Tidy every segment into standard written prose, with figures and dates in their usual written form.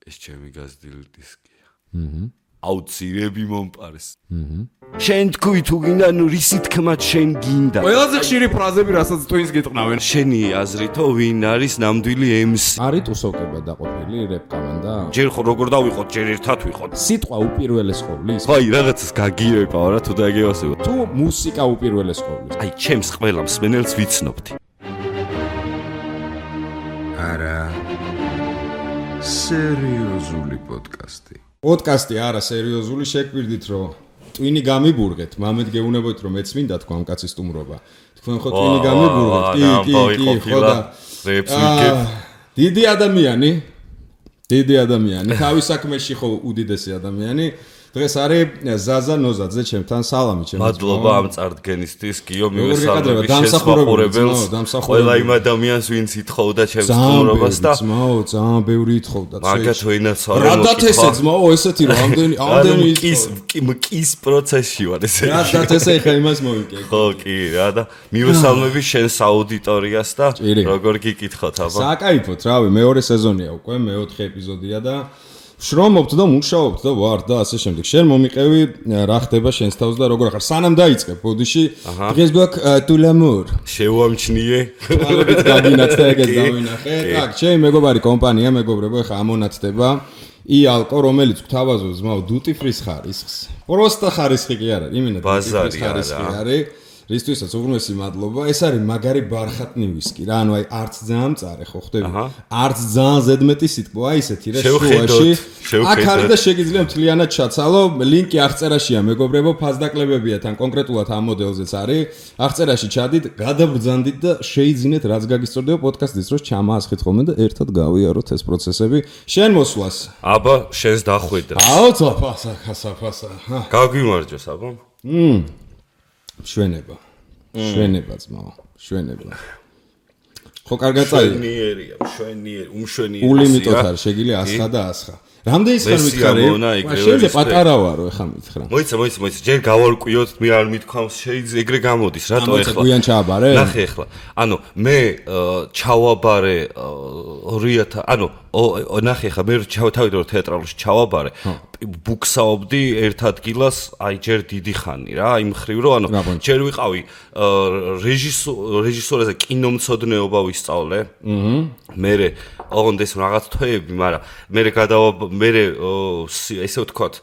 ეს ჩემი გაზრდილი დისკია. აუცილებლად მომპარეს. შენ თქვი თუ გინდა, ნუ რისი თქმაც შენ გინდა. ყველაზე ხშირი ფრაზები, რასაც twins გეტყნავენ. შენი აზრითო ვინ არის ნამდვილი MC? არის ტუსოვკება დაყოფილი რეპ კომანდა? ჯერ როგორ დავიყოთ, ჯერ ერთად ვიყოთ. სიტყვა უპირველეს ყოვლის. აი, რაღაცას გაგიებაო რა, თუ დაგევასებო. თუ მუსიკა უპირველეს ყოვლის. აი, ჩემს ყველა მსმენელს ვიცნობთ. არა. სერიოზული პოდკასტი. პოდკასტი არა სერიოზული, შეგვირდით რომ ტვინი გამიბურგეთ, მამეთ გეუნებოით რომ მეც მინდა თქვა ამ კაცის სტუმრობა. თქვენ ხო ტვინი გამიბურგეთ? კი, ხო და რეპს ვიგებ. დიდი ადამიანი, თავის საქმეში ხო უდიდესი ადამიანი. დღეს არის ზაზა ნოზაძე ჩემთან, სალამი ჩემს. მადლობა ამ წარდგენისთვის, გიო მივესალმები შესაძლებელს. ყველა იმ ადამიანს, ვინც ითხოვდა ჩემს სტუმრობას და ძალიან ბევრი ითხოვდა. მაგათ ვინაც არ რადათესე ძმაო, ესეთი რომ ამდენი მკის პროცესში ვარ ესე. რადათესე ხა იმას მოვიკე. ხო, კი, რა და მივესალმები შენს აუდიტორიას და როგორ გიკითხოთ აბა. საკაიფოთ, რავი, მეორე სეზონია უკვე, მეოთხე ეპიზოდია და შრომობთ და მუშაობთ და ვარ და ასე შემდეგ. შენ მომიყევი რა ხდება შენს თავს და როგორ ახარ სანამ დაიწყე ბოდიში დღეს გვაქვს ტულამურ შევამჩნიე ალბათ გაგინაცდა ეგეც დავინახე. так, ჩემი მეგობარი კომპანია, მეგობრებო, ხა ამონათდება იალკო, რომელიც გვთავაზობს ზმაო დუტი ფრის ხარისხს. პროსტა ხარისხი კი არა, იმენა დუტი ფრის ხარისხი არის. რისთვისაც უღრმესი მადლობა. ეს არის მაგარი ბარხატნი ვისკი რა, ანუ აი არც ძალიან მწარე ხო ხდები? არც ძალიან ზედმეტი სიტყვა, აი ესეთი რა შუაში. აქ არის და შეგიძლია მთლიანად ჩაცალო. ლინკი აღწერაშია მეგობრებო, ფასდაკლებებია თან კონკრეტულად ამ მოდელზეც არის. აღწერაში ჩადით, გადაბრძანდით და შეიძინეთ რაც გაგისწორდება პოდკასტის დროს ჩამაასხით ხოლმე და ერთად გავიაროთ ეს პროცესები. შენ მოსვლას. აბა, შენს დახვედრა. აუ, საფასა. გაგვიმარჯოს აბა. შვენება ძმაო, შვენება. ხო კარგად წაიღე. შვენიერი, უმშვენიერი. ულიმიტოთ არის, შეგიძლია ასხა და ასხა. რამდენის ხარ მითხარი? შენზე პატარა ვარო, ეხა მითხრა. მოიცა, ჯერ გავარკვიოთ, მე არ მithქვამს, შეიძლება ეგრე გამოდის, რატო ეხლა? გვიან ჩააბარე? ნახე ეხლა. ანუ მე ჩავაბარე 2000, ანუ ნახე ეხლა მე თავიდან რომ თეატრალში ჩავაბარე, ბუქსაობდი ერთ ადგილას, აი ჯერ დიდი ხანი რა, იმ ხრივ რომ ანუ ჯერ ვიყავი რეჟისორაზე კინომცოდნეობა ვისწავლე. მერე ოღონდ ეს რაღაც თვეები, მაგრამ მე ესე ვთქვათ,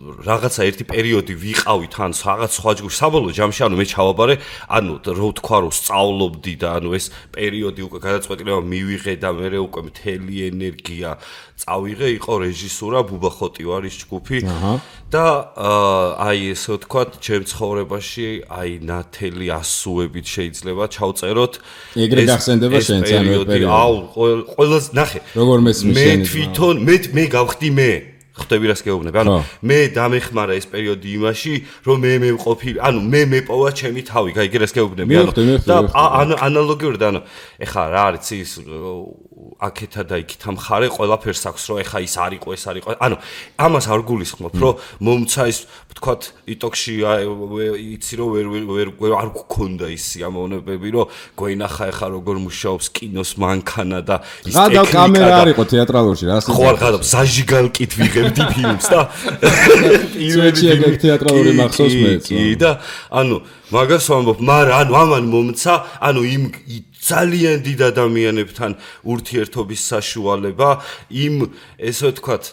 რაღაცა ერთი პერიოდი ვიყავი თან რაღაც სხვა ჯგუფში, საბოლოო ჯამში ანუ მე ჩავაბარე, ანუ რო ვთქვა რომ სწავლობდი და ანუ ეს პერიოდი უკვე გადაწყვეტილება მივიღე და მე უკვე მთელი ენერგია წავიღე, იყო რეჟისურა, ბუბა ხოტივარის ჯგუფი და აი ესე ვთქვათ, ჩემ ცხოვრებაში აი ნათელი ასუებით შეიძლება ჩავწეროთ. ეგრე გახსენდება შენც ანუ ეს პერიოდი. აუ, ყველას ნახე. როგორ მესმის შენი? მე თვითონ მე გავხდი მე. ხტები რას გეუბნები? ანუ მე დამეხმარა ეს პერიოდი იმაში, რომ მე მევყოფილი, ანუ მე მეპოვა ჩემი თავი, გაიგე რას გეუბნები? ანუ და ანალოგიურად, ანუ ეხა რა არის ის აქეთა და იქითა მხარე ყველაფერს აქვს, რომ ეხა ის არისო, ეს არისო. ანუ ამას არ გულისხმობ, რომ მომცა ის ვთქვათ იტოქში იცი რომ ვერ არ გქონდა ის ამონებები, რომ გვენახა ეხა როგორ მუშაობს კინოს მანქანა და ის ტექნიკა. და კამერა არისო თეატრალურში რა. ხო არ გადავ ზაჟიგალკით ვიღებდი ფილმს და პირველი ეგ თეატრალური მახსოვს მეც. კი და ანუ მაგას ვამბობ, მაგრამ ანუ ამან მომცა, ანუ იმ ძალიან დიდ ადამიანებთან ურთიერთობის საშუალება, იმ ესე ვთქვათ,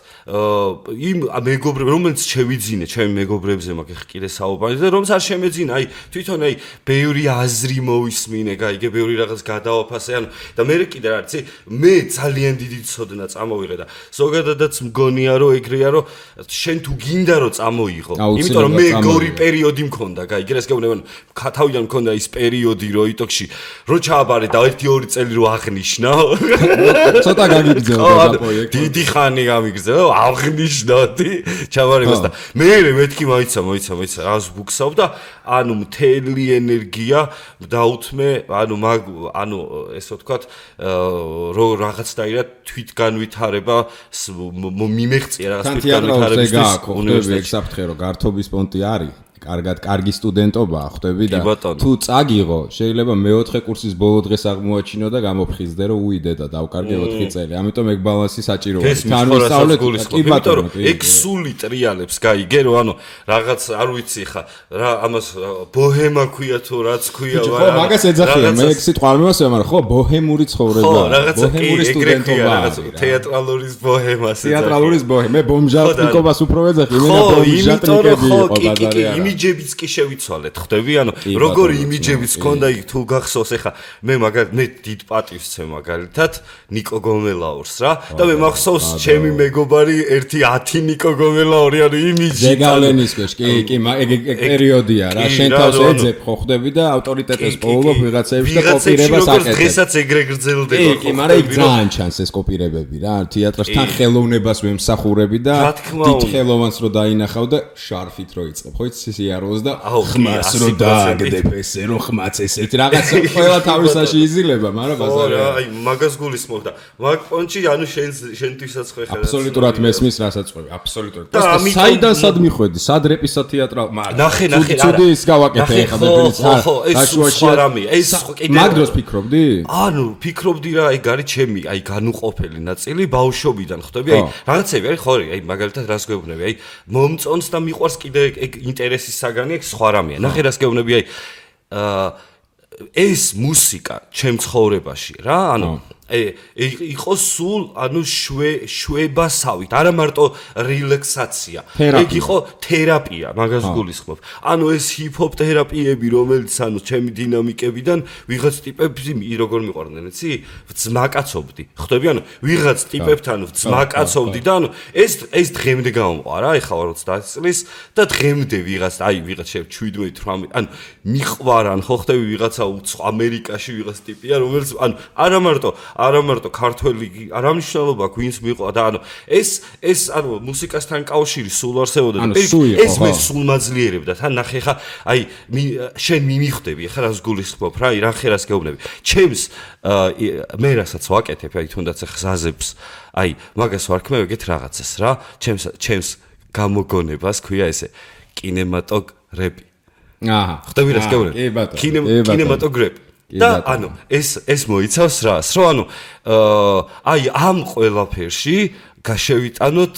იმ მეგობრებს, რომელიც შევიძინე, ჩემი მეგობრებზე მაგ ხკირე საუბარი და რომც არ შემეძინა, აი თვითონ აი ბევრი აზრი მოვისმინე, გაიგე, ბევრი რაღაც გადავაფასე, ანუ და მე კიდე რა არის, მე ძალიან დიდი ცოდნა წამოვიღე და ზოგადადაც მგონია რომ ეგრეა, რომ შენ თუ გინდა რომ წამოიღო, იმიტომ რომ მე გორი პერიოდი მქონდა, გაიგე, ეს გეუბნები, თავიდან მქონდა ის პერიოდი, რომ იტოქში რო ჩააბარე და 1-2 წელი რო აღნიშნა. ცოტა გაგიგზავნა და პროექტი. დიდი ხანი გამიგზავნა, აღნიშნოდი. ჩავარებას და მე მეთქი მოიცა, რას ბუქსავ და ანუ მთელი ენერგია დაუთმე, ანუ ესე ვთქვათ, რო რაღაცნაირად თვითგანვითარება მიმეღწია რაღაც თვითგანვითარებისთვის უნივერსიტეტში. ეგ საფრთხე რომ გართობის პონტი არის. კარგი სტუდენტობაა, ხვდები და თუ წაგიღო, შეიძლება მე-4 კურსის ბოლო დღეს აღმოაჩინო და გამოფხიზდე რომ უიდე და დავკარგე 4 წელი. ამიტომ ეგ ბალანსი საჭიროა. თან ვისწავლეთ, კი ბატონო, ეგ სული ტრიალებს გაიგე რომ ანუ რაღაც არ ვიცი ხა რა ამას ბოჰემა ქვია თუ რაც ქვია ხო, მაგას ეძახიან, მე ეგ სიტყვა არ მევასწრე, მაგრამ ხო, ბოჰემური ცხოვრება, ბოჰემური სტუდენტობა, თეატრალური ბოჰემას ეძახიან. თეატრალური ბოჰემა, მე ბომჟატნიკობას უფრო ვეძახი, მე ბომჟატნიკები იყო ბაზარი არა. იმიჯებიც კი შევიცვალეთ, ხვდები? ანუ როგორი იმიჯებიც ქონდა იქ თუ გახსოვს, ეხა მე მე დიდ პატივს ვცემ მაგალითად ნიკო გომელაურს რა და მე მახსოვს ჩემი მეგობარი 1-10 ნიკო გომელაური ანუ იმიჯი ზეგავლენის ქვეშ კი ეგ პერიოდია რა შენ თავს ეძებ ხო ხვდები და ავტორიტეტს პოულობ ვიღაცებში და კოპირებას აკეთებ დღესაც ეგრე გრძელდება ხო კი მაგრამ იქ ძალიან ჩანს ეს კოპირებები რა თეატრში ხელოვნებას ვემსახურები და დიდ ხელოვანს რო დაინახავ და შარფით რო იწყებ ხო იცი სიაროს და ხმას რო დააგდებ ესე რო ხმაც ესეთ რაღაც ყველა თავისაში იზილება მაგრამ ბაზარი აი მაგას გულისხმობ და მაგ პონჩი ანუ შენთვისაც ხო ეხლა აბსოლუტურად მესმის რასაც ყვები აბსოლუტურად და საიდან სად მიხვედი სად რეპისა თეატრალ მაგრამ ნახე ცუდი ის გავაკეთე ეხლა ბებიც ეს სხვა რამე ეს კიდე მაგ დროს ფიქრობდი ანუ ფიქრობდი რა ეგ არის ჩემი აი განუყოფელი ნაწილი ბავშვობიდან ხვდები აი რაღაცები არის ხო აი მაგალითად რას გეუბნები აი მომწონს და მიყვარს კიდე ეგ ინტერესის საგანი ეგ სხვა რამეა ნახე რას გეუბნები აი ეს მუსიკა ჩემ ცხოვრებაში რა ანუ იყო სულ ანუ შვებასავით არა მარტო რელაქსაცია ეგ იყო თერაპია მაგას გულისხმობ ანუ ეს ჰიპ-ჰოპ თერაპიები რომელიც ანუ ჩემი დინამიკებიდან ვიღაც ტიპებს როგორ მიყვარდნენ იცი ვძმაკაცობდი ხვდები ანუ ვიღაც ტიპებთან ვძმაკაცობდი და ანუ ეს დღემდე გამომყვა რა ეხლა 30 წლის და დღემდე ვიღაც აი ვიღაც 17-18 ანუ მიყვარან ხო ხვდები ვიღაცა ამერიკაში ვიღაც ტიპია რომელიც ანუ არა მარტო ქართველი არამშრალობა გვინს მიყვა და ანუ ეს ანუ მუსიკასთან კავშირი სულ არსებობდა და ეს მე სულ მაძლიერებდა თან ნახე ხა აი შენ მიმიხვდები ხა რას გულისხმობ რა რა ხერას გეუბნები ჩემს მე რასაც ვაკეთებ აი თუნდაც ხზაზებს აი მაგას ვარქმევ ეგეთ რაღაცას რა ჩემს გამოგონებას ქვია ესე კინემატოგრაფი აჰა ხვდები რას გეუბნები კინემატოგრაფი და ანუ ეს მოიცავს რას რომ ანუ აი ამ ყველაფერში გაშევიტანოთ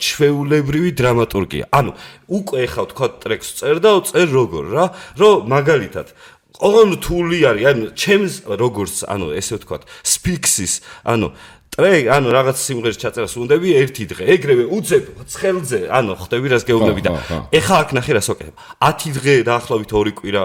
ჩვეულებრივი დრამატურგია ანუ უკვე ახლა თქვა ტრეკს წერ და წერ როგორ რა რომ მაგალითად ყოველთული არის ანუ ჩემს როგორც ანუ ესე ვთქვა სფიქსის ანუ ტრეკ ანუ რაღაც სიმღერის ჩაწერას უნდები ერთი დღე ეგრევე უძებ ცხელზე ანუ ხვდები რას გეუბნები და ახლა აქ ნახე რას ვაკეთებ 10 დღე დაახლოებით 2 კვირა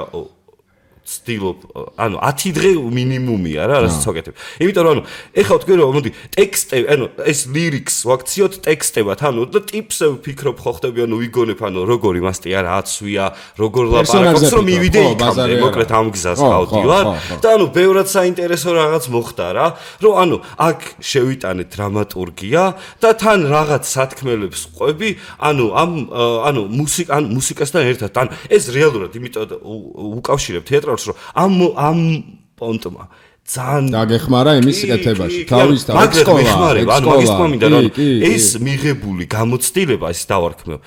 სტილობ ანუ 10 დღე მინიმუმია რა რასაც ვაკეთებ. იმიტომ რომ ანუ ეხლა ვთქვი რომ მოდი ტექსტები ანუ ეს ლირიქს ვაქციოთ ტექსტებად ანუ და ტიპს ვფიქრობ ხო ხდები ანუ ვიგონებ ანუ როგორი მასტია რა აცვია როგორ ლაპარაკობს რომ მივიდე იქამდე მოკლედ ამ გზას გავდივარ და ანუ ბევრად საინტერესო რაღაც მოხდა რა რომ ანუ აქ შევიტანე დრამატურგია და თან რაღაც სათქმელებს ყვები ანუ ანუ მუსიკასთან ერთად ან ეს რეალურად იმიტომ უკავშირებ თეატრს რომ ამ პონტმა ძალიან დაგეხმარა იმის კეთებაში თავის მაგის მინდა რომ ეს მიღებული გამოცდილება ის დავარქმევ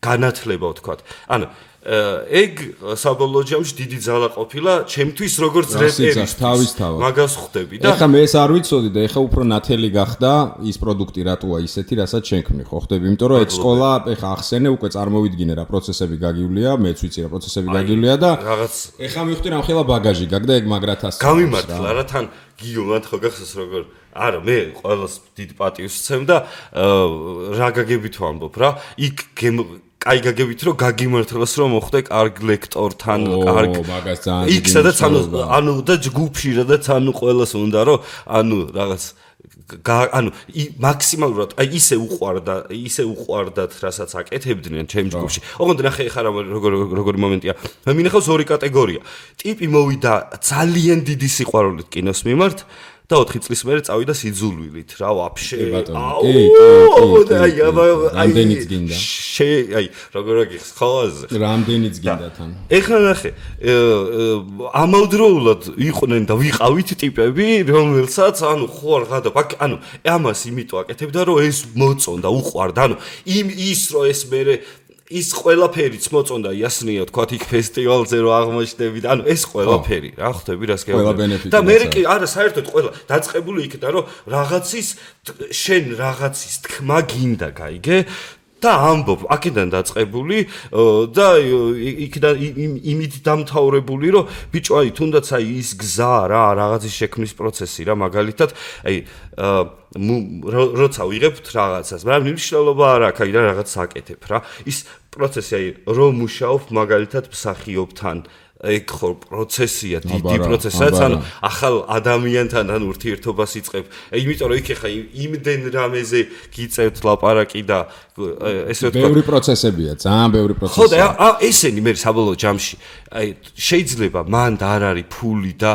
განათლება ვთქვათ ანუ ეგ საბოლოო ჯამში დიდი ძალა ყოფილა ჩემთვის როგორც რეპერის მაგას ხვდები და ეხლა მე ეს არ ვიცოდი და ეხლა უფრო ნათელი გახდა ის პროდუქტი რატოა ისეთი რასაც შენქმნი ხო ხვდები იმიტომ რომ ეგ სკოლა ეხლა ახსენე უკვე წარმოვიდგინე რა პროცესები გაგივლია მეც ვიცი რა პროცესები გაგივლია და რაღაც ეხლა მივხვდი რა მხელა ბაგაჟი გაგდა ეგ მაგრათას გამიმართლა რა თან გიომად ხო გახსოვს როგორ არა მე ყველას დიდ პატივს ვცემ და რა გაგებით ვამბობ რა იქ აი გაგებით რომ გაგიმართლოს რომ მოხდე კარგ ლექტორთან კარგ მაგას ძალიან იქ სადაც ანუ და ჯგუფში სადაც ანუ ყველას უნდა რომ ანუ რაღაც ანუ მაქსიმალურად აი ისე უყვარდათ რასაც აკეთებდნენ ჩემ ჯგუფში ოღონდ ნახე ხარ როგორი მომენტია მე მინახავს ორი კატეგორია ტიპი მოვიდა ძალიან დიდი სიყვარულით კინოს მიმართ და 4 წლის მერე წავიდა სიძულვილით რა ვაფშე რამდენიც გინდა აი როგორ გიხს ხოაზე რამდენიც გინდა თან ეხლა ნახე ამავდროულად იყვნენ და ვიყავით ტიპები რომელსაც ანუ ხო რაღაცა ანუ ამას იმიტომ აკეთებდა რომ ეს მოწონდა უყვარდა ანუ ის რომ ეს მერე ის ყველაფერიც მოწონდა იასნია თქვათ იქ ფესტივალზე რო აღმოჩნდებით ანუ ეს ყველაფერი რა ხვდები რას გეუბნები და მე კი არა საერთოდ ყველა დაწყებული იქიდან რომ შენ რაღაცის თქმა გინდა გაიგე და ამბობ აქედან დაწყებული და იქიდან იმით დამთავრებული რომ ბიჭო აი თუნდაც აი ის გზა რა რაღაცის შექმნის პროცესი რა მაგალითად აი როცა ვიღებთ რაღაცას მაგრამ მნიშვნელობა არ აქვს აი რაღაც აკეთებ რა ის პროცესი აი რომ მუშაობ მაგალითად მსახიობთან ეგ ხო პროცესია დიდი პროცესია ანუ ახალ ადამიანთან ან ურთიერთობას იწყებ იმიტომ რომ იქ ხა იმდენ რამეზე გიწევთ ლაპარაკი და ესე ვთქვა ბევრი პროცესებია ძალიან ბევრი პროცესია ხო და ესენი მე საბოლოო ჯამში აი შეიძლება მანდ არ არის ფული და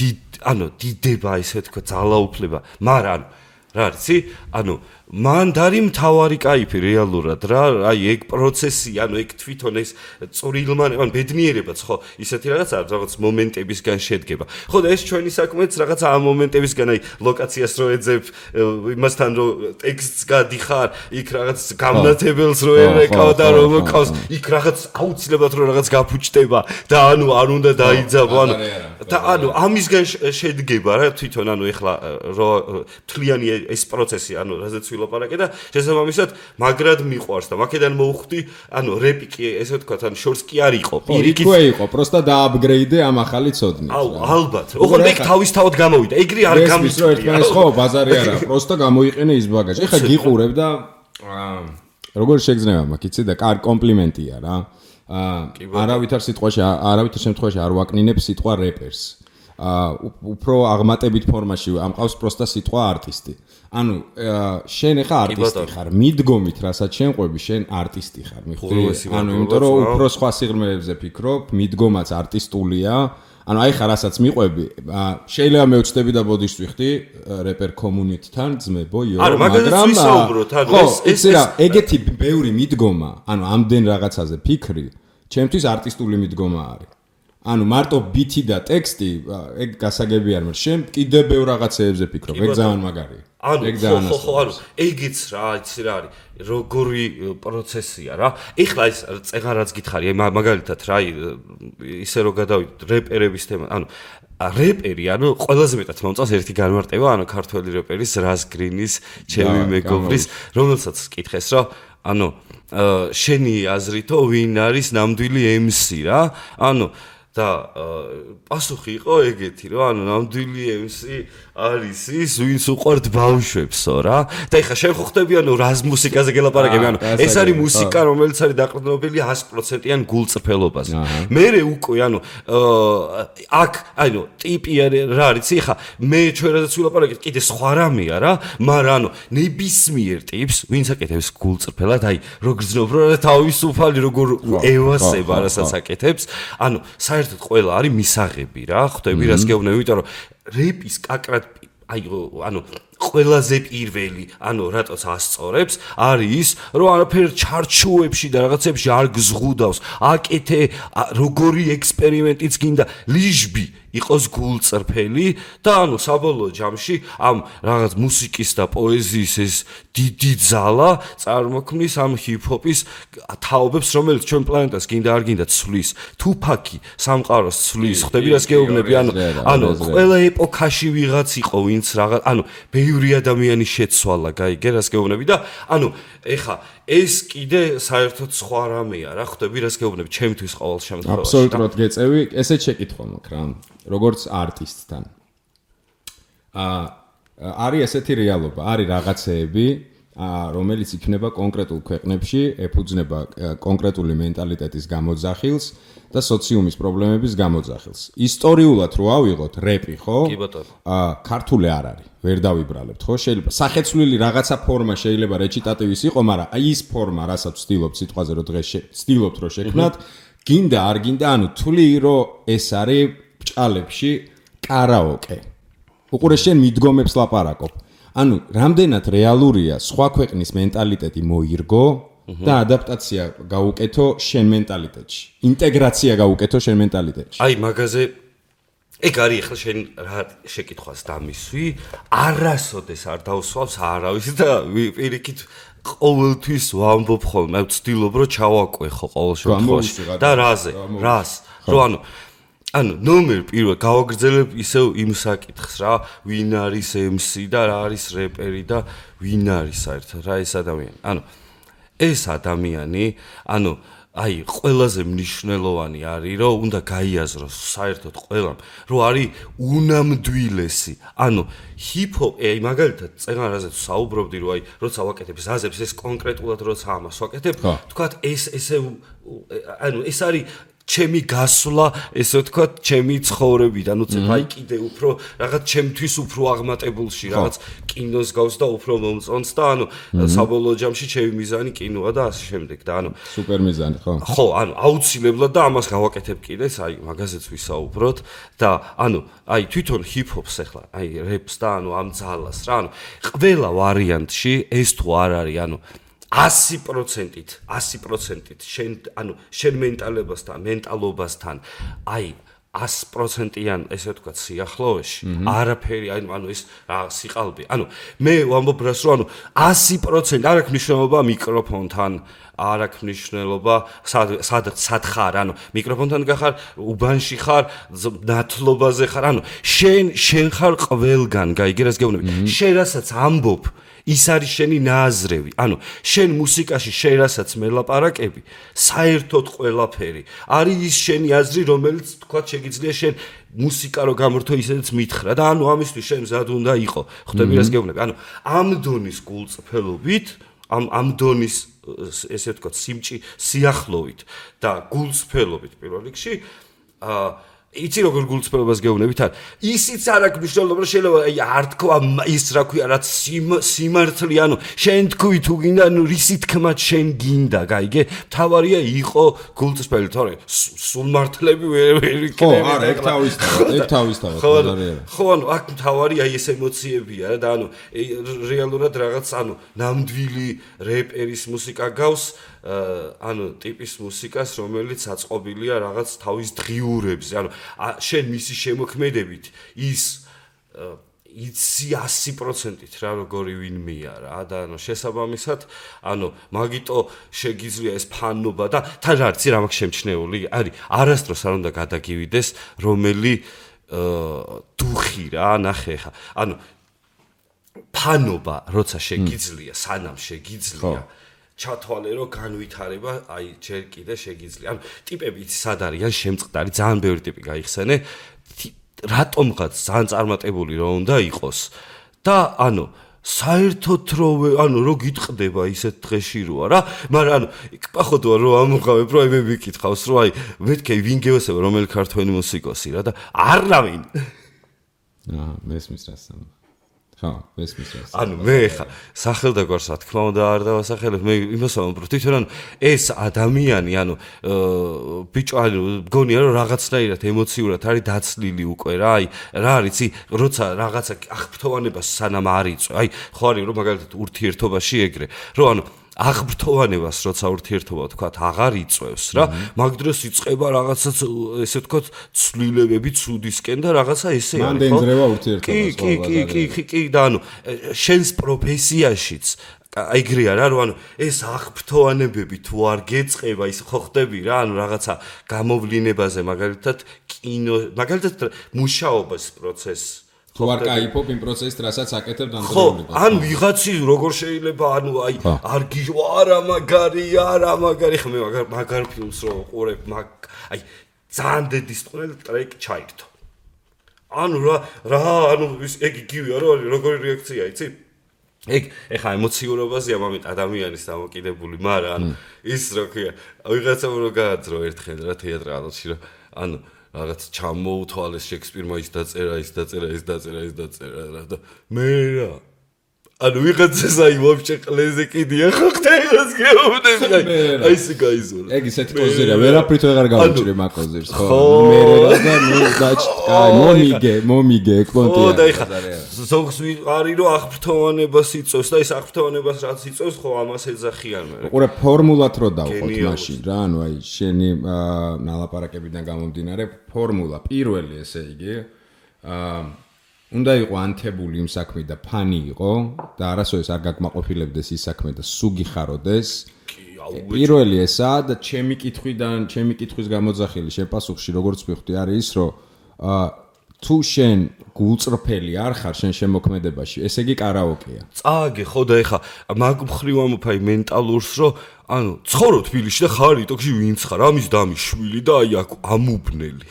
დიდება ესე ვთქვა ძალაუფლება მაგრამ რა არიცი ანუ მანდ არის მთავარი кайფი რეალურად რა აი ეგ პროცესი ანუ ეგ თვითონ ეს წვრილმან ან ბედნიერებაც ხო ისეთი რაღაც მომენტებისგან შედგება ხო და ეს ჩვენი საქმეც რაღაც ამ მომენტებისგან აი ლოკაციას რო ეძებ იმასთან რო ტექსტს გადიხარ იქ რაღაც გამნათებელს რო ერეკავ და რომ მოკავს იქ რაღაც აუცილებლად რო რაღაც გაფუჭდება და ანუ არ უნდა დაიძაბო ანუ და ანუ ამისგან შედგება რა თვითონ ანუ ეხლა რო თლიანი ეს პროცესი ანუ რაზეც ვილაპარაკე და შესაბამისად მაგრად მიყვარს და მაქედან მოვხვდი ანუ რეპი კი ესე ვთქვათ ანუ შორს კი არ იყო პირიქით ხო იყო პროსტა დააპგრეიდე ამ ახალი ცოდნით აუ ალბათ ოღონდ ეგ თავისთავად გამოვიდა ეგრე არ გამიწვია ერთმანეთს ხო ბაზარი არა პროსტა გამოიყენე ის ბაგაჟი ეხა გიყურებ და როგორ შეგზნება მაგ იცი და კარ კომპლიმენტია რა არავითარ შემთხვევაში არ ვაკნინებ სიტყვა რეპერს უფრო აღმატებით ფორმაში ამყავს პროსტა სიტყვა არტისტი ანუ შენ ახლა არტისტი ხარ მიდგომით რასაც შენ ყვები შენ არტისტი ხარ მიხვდი ანუ იმიტომ რომ უფრო სხვა სიღრმეებზე ფიქრობ მიდგომაც არტისტულია ანუ აი ხარ რასაც მიყვები შეიძლება მეუჩდები და ბოდიშვიხდი რეპერ კომუნიტთან ძმებო იო მაგრამ ეს ეგეთი ბევრი მიდგომა ანუ ამდენ რაღაცაზე ფიქრი ჩემთვის არტისტული მიდგომა არის ანუ მარტო ბიტი და ტექსტი ეგ გასაგები არ მაგრამ შენ კიდე ბევრ რაღაცეებზე ფიქრობ ეგ ძალიან მაგარია ეგ ძალიან ხო ანუ ეგიც რა იცი რა არის როგორი პროცესია რა ეხლა ეს წეღარაც გითხარი მაგალითად რა ისე რომ გადავიდეთ რეპერების თემა ანუ რეპერი ანუ ყველაზე მეტად მომწონს ერთი განმარტება ანუ ქართველი რეპერის რას გრინის ჩემი მეგობრის რომელსაც კითხეს რომ ანუ შენი აზრითო ვინ არის ნამდვილი MC რა ანუ და პასუხი იყო ეგეთი რომ ანუ ნამდვილი MC არის ის ვინც უყვართ ბავშვებსო რა და ეხლა შენ ხო ხდები ანუ რას მუსიკაზე გელაპარაკები ანუ ეს არის მუსიკა რომელიც არის დაყრდნობილი 100%-იან გულწრფელობაზე მერე უკვე ანუ აქ ანუ ტიპი რა არის ეხლა მე ჩვენ რაზეც ვილაპარაკეთ კიდე სხვა რამეა რა მაგრამ ანუ ნებისმიერ ტიპს ვინც აკეთებს გულწრფელად აი რო გრძნობ რა თავისუფალი როგორ ევასება რასაც აკეთებს ანუ საერთოდ ყველა არის მისაღები რა ხვდები რას გეუბნები იმიტომ რომ რეპის კაკრად აი ანუ ყველაზე პირველი ანუ რატოც ასწორებს არის რომ არაფერ ჩარჩოებში და რაღაცებში არ გზღუდავს აკეთე როგორი ექსპერიმენტიც გინდა ლიჟბი იყოს გულწრფელი და ანუ საბოლოო ჯამში ამ რაღაც მუსიკის და პოეზიის ეს დიდი ძალა წარმოქმნის ამ ჰიპ-ჰოპის თაობებს რომელიც ჩვენ პლანეტას გინდა არ გინდა ცვლის თუფაკი სამყაროს ცვლის ხვდები რას გეუბნები ანუ ყველა ეპოქაში ვიღაც იყო ვინც რაღაც ანუ ბევრი ადამიანი შეცვალა გაიგე რას გეუბნები და ანუ ეხა ეს კიდე საერთოდ სხვა რამეა რა ხვდები რას გეუბნები ჩემთვის ყოველ შემთხვევაში აბსოლუტურად გეწევი ესეც შეკითხვა მაქვს რა როგორც არტისტთან არის ესეთი რეალობა არის რაღაცეები რომელიც იქნება კონკრეტულ ქვეყნებში ეფუძნება კონკრეტული მენტალიტეტის გამოძახილს და სოციუმის პრობლემების გამოძახილს ისტორიულად რო ავიღოთ რეპი ხო კი ბატონო ქართული არ არის ვერ დავიბრალებთ ხო შეიძლება სახეცვლილი რაღაცა ფორმა შეიძლება რეჩიტატივის იყო მაგრამ აი ის ფორმა რასაც ვცდილობთ სიტყვაზე რომ დღეს ვცდილობთ რომ შექმნათ გინდა არ გინდა ანუ თვლი რომ ეს არის ბჭალებში კარაოკე უყურე შენ მიდგომებს ლაპარაკობ ანუ რამდენად რეალურია სხვა ქვეყნის მენტალიტეტი მოირგო და ადაპტაცია გაუკეთო შენ მენტალიტეტში ინტეგრაცია გაუკეთო შენ მენტალიტეტში აი მაგაზე ეგ არის ახლა შენ რა შეკითხვას დამისვი, არასოდეს არ დავსვავს არავის და პირიქით ყოველთვის ვამბობ ხოლმე, ვცდილობ რომ ჩავაკვე ხო ყოველ შემთხვევაში და რას რომ ანუ ნომერ პირველ გავაგრძელებ ისევ იმ საკითხს რა, ვინ არის MC და რა არის რეპერი და ვინ არის საერთოდ რა ეს ადამიანი. ანუ ეს ადამიანი, ანუ აი ყველაზე მნიშვნელოვანი არის რომ უნდა გაიაზროს საერთოდ ყველამ რომ არის უნამდვილესი ანუ ჰიპ-ჰოპ აი მაგალითად წეგანაზე საუბრობდი რომ აი როცა ვაკეთებ ზაზებს ეს კონკრეტულად როცა ამას ვაკეთებ თქვათ ესე ანუ ეს არის ჩემი გასვლა ესე ვთქვათ ჩემი ცხოვრებიდან ნუ წებ აი კიდე უფრო რაღაც ჩემთვის უფრო აღმატებულში რაღაც კინოს გავს და უფრო მომწონს და ანუ საბოლოო ჯამში ჩემი მიზანი კინოა და ასე შემდეგ და ანუ სუპერ მიზანი ხო ანუ აუცილებლად და ამას გავაკეთებ კიდეც აი მაგაზეც ვისაუბროთ და ანუ აი თვითონ ჰიპ-ჰოპს ახლა აი რეპს და ანუ ამ ძალას რა ანუ ყველა ვარიანტში ეს თუ არ არის ანუ 100%-ით შენ ანუ შენ მენტალობასთან აი 100%-იან ესე ვთქვათ სიახლოვეში არაფერი ანუ ეს რა სიყალბე ანუ მე ვამბობ რას რომ ანუ 100% არ აქვს მნიშვნელობა მიკროფონთან არ აქვს მნიშვნელობა სად ხარ ანუ მიკროფონთან გახარ უბანში ხარ ნათლობაზე ხარ ანუ შენ ხარ ყველგან გაიგე რას გეუბნები შენ რასაც ამბობ ის არის შენი ნააზრევი. ანუ შენ მუსიკაში შენ რასაც მელაპარაკები, საერთოდ ყველაფერი არის ის შენი აზრი, რომელიც თქვათ შეგიძლია შენ მუსიკა რო გამორთო ისედაც მითხრა და ანუ ამისთვის შენ მზად უნდა იყო. ხვდები რას გეუბნები? ანუ ამ დონის გულწრფელობით, ამ დონის ესე ვთქვათ სიახლოვით და გულწრფელობით პირველ რიგში იცი როგორ გულწრფელობას გეუბნებით არ ისიც არ აქვს მნიშვნელობა რომ შეიძლება აი არ თქვა ის რა ქვია რაც სიმართლე ანუ შენ თქვი თუ გინდა ანუ რისი თქმაც შენ გინდა გაიგე თავარია იყო გულწრფელი თორე სულ მართლები ვერ იქნება ხო არა ეგ თავისთავად ხო ანუ აქ თავარი აი ეს ემოციებია რა და ანუ რეალურად რაღაც ანუ ნამდვილი რეპერის მუსიკა გავს ანუ ტიპის მუსიკას რომელიც აწყობილია რაღაც თავის დღიურებზე ანუ შენ მისი შემოქმედებით ის იცი 100%-ით რა როგორი ვინმეა რა და ანუ შესაბამისად ანუ მაგიტო შეგიძლია ეს ფანობა და თან რა არის რა მაქვს შემჩნეული არის არასდროს არ უნდა გადაგივიდეს რომელი დუხი რა ნახე ხა ანუ ფანობა როცა შეგიძლია სანამ შეგიძლია ჩათვალე რომ განვითარება აი ჯერ კიდე შეგიძლია ანუ ტიპები იცი სად არიან შემწყდარი ძალიან ბევრი ტიპი გაიხსენე რატომღაც ძალიან წარმატებული რომ უნდა იყოს და ანუ საერთოდ რომ ანუ რო გიტყდება ისეთ დღეში როა რა მაგრამ ანუ პახოდოა რომ ამოღავებ რომ მე ვიკითხავს რომ აი მეთქე ვინ გევასება რომელი ქართველი მუსიკოსი რა და არავინ მესმის რას ხო, მესმის რას. ანუ მე ხა სახელდაგვარს რა თქმა უნდა არ დავასახელებ, მე იმას ვამბობ, თვითონ ანუ ეს ადამიანი, ანუ ბიჭო, ანუ მგონია რომ რაღაცნაირად ემოციურად არის დაცლილი უკვე რა, აი რა არის, როცა რაღაცა აღფრთოვანებას სანამ არ იწვე, აი ხო არის რომ მაგალითად ურთიერთობაში ეგრე, რომ ანუ აღბრთოვანებას როცა ურთიერთობა თქვათ აღარ იწევს რა მაგ დროს იწყება რაღაცა ესე ვთქვათ ცვლილებები ცუდისკენ და რაღაცა ესე არის ხო მანდ ენძრევა ურთიერთობას კი და ანუ შენს პროფესიაშიც ეგრეა რა რომ ანუ ეს აღბრთოვანებები თუ არ გეწყება ის ხო ხდები რა ანუ რაღაცა გამოვლინებაზე მაგალითად კინო მაგალითად მუშაობის პროცესს თუ არ кайფობ იმ პროცესს, რასაც აკეთებ ხო, დამწერლობას. ან ვიღაცი როგორ შეიძლება, ანუ აი, არ გიჟვა, არა მაგარი, ხმე მაგარ ფილმს რო ყურებ, აი, ძალიან დედის ტყუილ ტრეკი ჩაირთო. ანუ რა, ანუ ეგ იგივეა, როგორი რეაქცია, იცი? ეგ ეხა ემოციურობაზეა მომენტ ადამიანის დამოკიდებული, მაგრამ ანუ ის რა ქვია, ვიღაცამ რო გააძრო ერთხელ რა თეატრალში, რომ ანუ რაღაც ჩამოუთვალეს შექსპირმა ის დაწერა რა და მე რა ანუ ვიღაცას აი ვაფშე ყლეზე კიდია ხო ხტეილას გეუბნები აი ესე გაიზურა ეგ ისეთი კოზირია ვერაფრით ვეღარ გავუჭრი მაგ კოზირს ხო მე და ნუ დაჭკაი მომიგე ეკონტია ხო და ეხა ზოგს არის რომ აღფრთოვანებას იწევს და ეს აღფრთოვანებას რაც იწევს ხო ამას ეძახიან მე ყურე ფორმულად რო დავყოთ მაშინ რა ანუ აი შენი ნალაპარაკებიდან გამომდინარე ფორმულა პირველი ესე იგი უნდა იყო ანთებული იმ საქმე და ფანი იყო და არასოდეს არ გაკმაყოფილებდეს ის საქმე და სუგი ხაროდეს პირველი ესაა და ჩემი კითხვის გამოძახილი შენ პასუხში როგორც ვიხდი არის ის რომ თუ შენ გულწრფელი არ ხარ შენ შემოქმედებაში ესე იგი კარაოკეა წააგე ხო და ეხა მაგ მხრივ ამოფაი მენტალურს რომ ანუ ცხოვრობ თბილისში და ხარ იტოქში ვინც ხარ ამის დამის შვილი და აი აქ ამუბნელი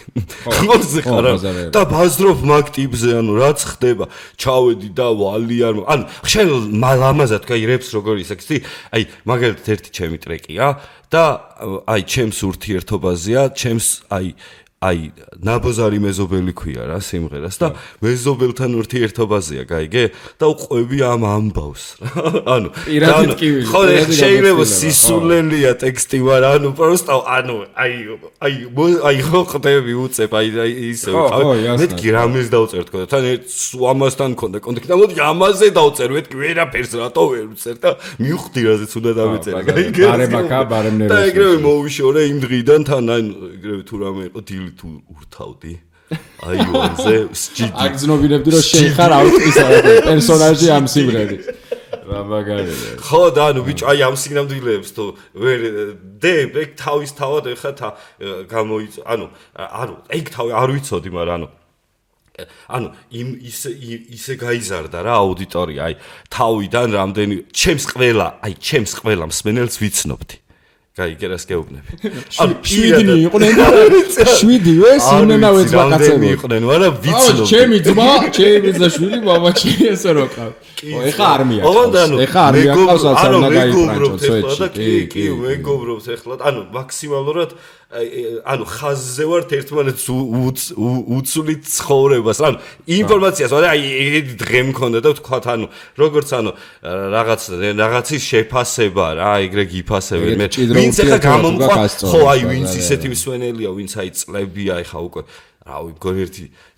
ხორზე ხარ და ბაზრობ მაგ ტიპზე ანუ რაც ხდება ჩავედი და ვალი არ ანუ შენ ლამაზად კაი რეპს როგორ ისექსი აი მაგალითად ერთი ჩემი ტრეკია და აი ჩემს ურთიერთობაზეა ჩემს აი ნაბოზარი მეზობელი ქვია რა სიმღერას და მეზობელთან ურთიერთობაზეა გაიგე და უყვები ამ ამბავს ანუ პირადით კი ხო შეიძლება სისულელია ტექსტი მაგრამ ანუ პროსტა ანუ აი ხო ხდები უწებ აი ისე მეთქი რამეს დავწერ თქო თან ამასთან მქონდა კონტაქტი და მოდი ამაზე დავწერ მეთქი ვერაფერს რატო ვერ ვწერ და მივხვდი რაზეც უნდა დავეწერე გაიგე ბარემაკა და ეგრევე მოვიშორე იმ დღიდან თან აი ეგრევე თუ რამე იყო დილ თუ ურთავდი აი ვანზე სჯიდი აგზნობინებდი რომ შენ ხარ აუტისა პერსონაჟი ამ სიმღერის რა მაგარია ხო და ანუ ბიჭო აი ამ სიგნალებს თუ ვერ ეგ თავის თავად ეხა გამოიწ ანუ ეგ თავი არ ვიცოდი მაგრამ ანუ ისე გაიზარდა რა აუდიტორია აი თავიდან რამდენი ჩემს ყველა მსმენელს ვიცნობდი გაიგე რას გეუბნები ანუ 7 იყვნენ და 7-ვე სიმენავეც ვაკაცები იყვნენ მაგრამ ვიცნობ ჩემი ძმა ჩემი შვილი მამაჩი ესე რო ყავ ეხა არმია ეხა არმია ყავს არ უნდა გაიფრანჭო სვეტში კი მეგობრობს ეხლა ანუ მაქსიმალურად ანუ ხაზზე ვართ ერთმანეთს უცვლით ცხოვრებას ანუ ინფორმაციას აი დღე მქონდა და ვთქვათ ანუ როგორც ანუ რაღაცის შეფასება რა ეგრე გიფასებენ მე ვინც ახლა გამომყვა ხო აი ვინც ისეთი მსვენელია ვინც აი წლებია ახლა უკვე რავი მგონი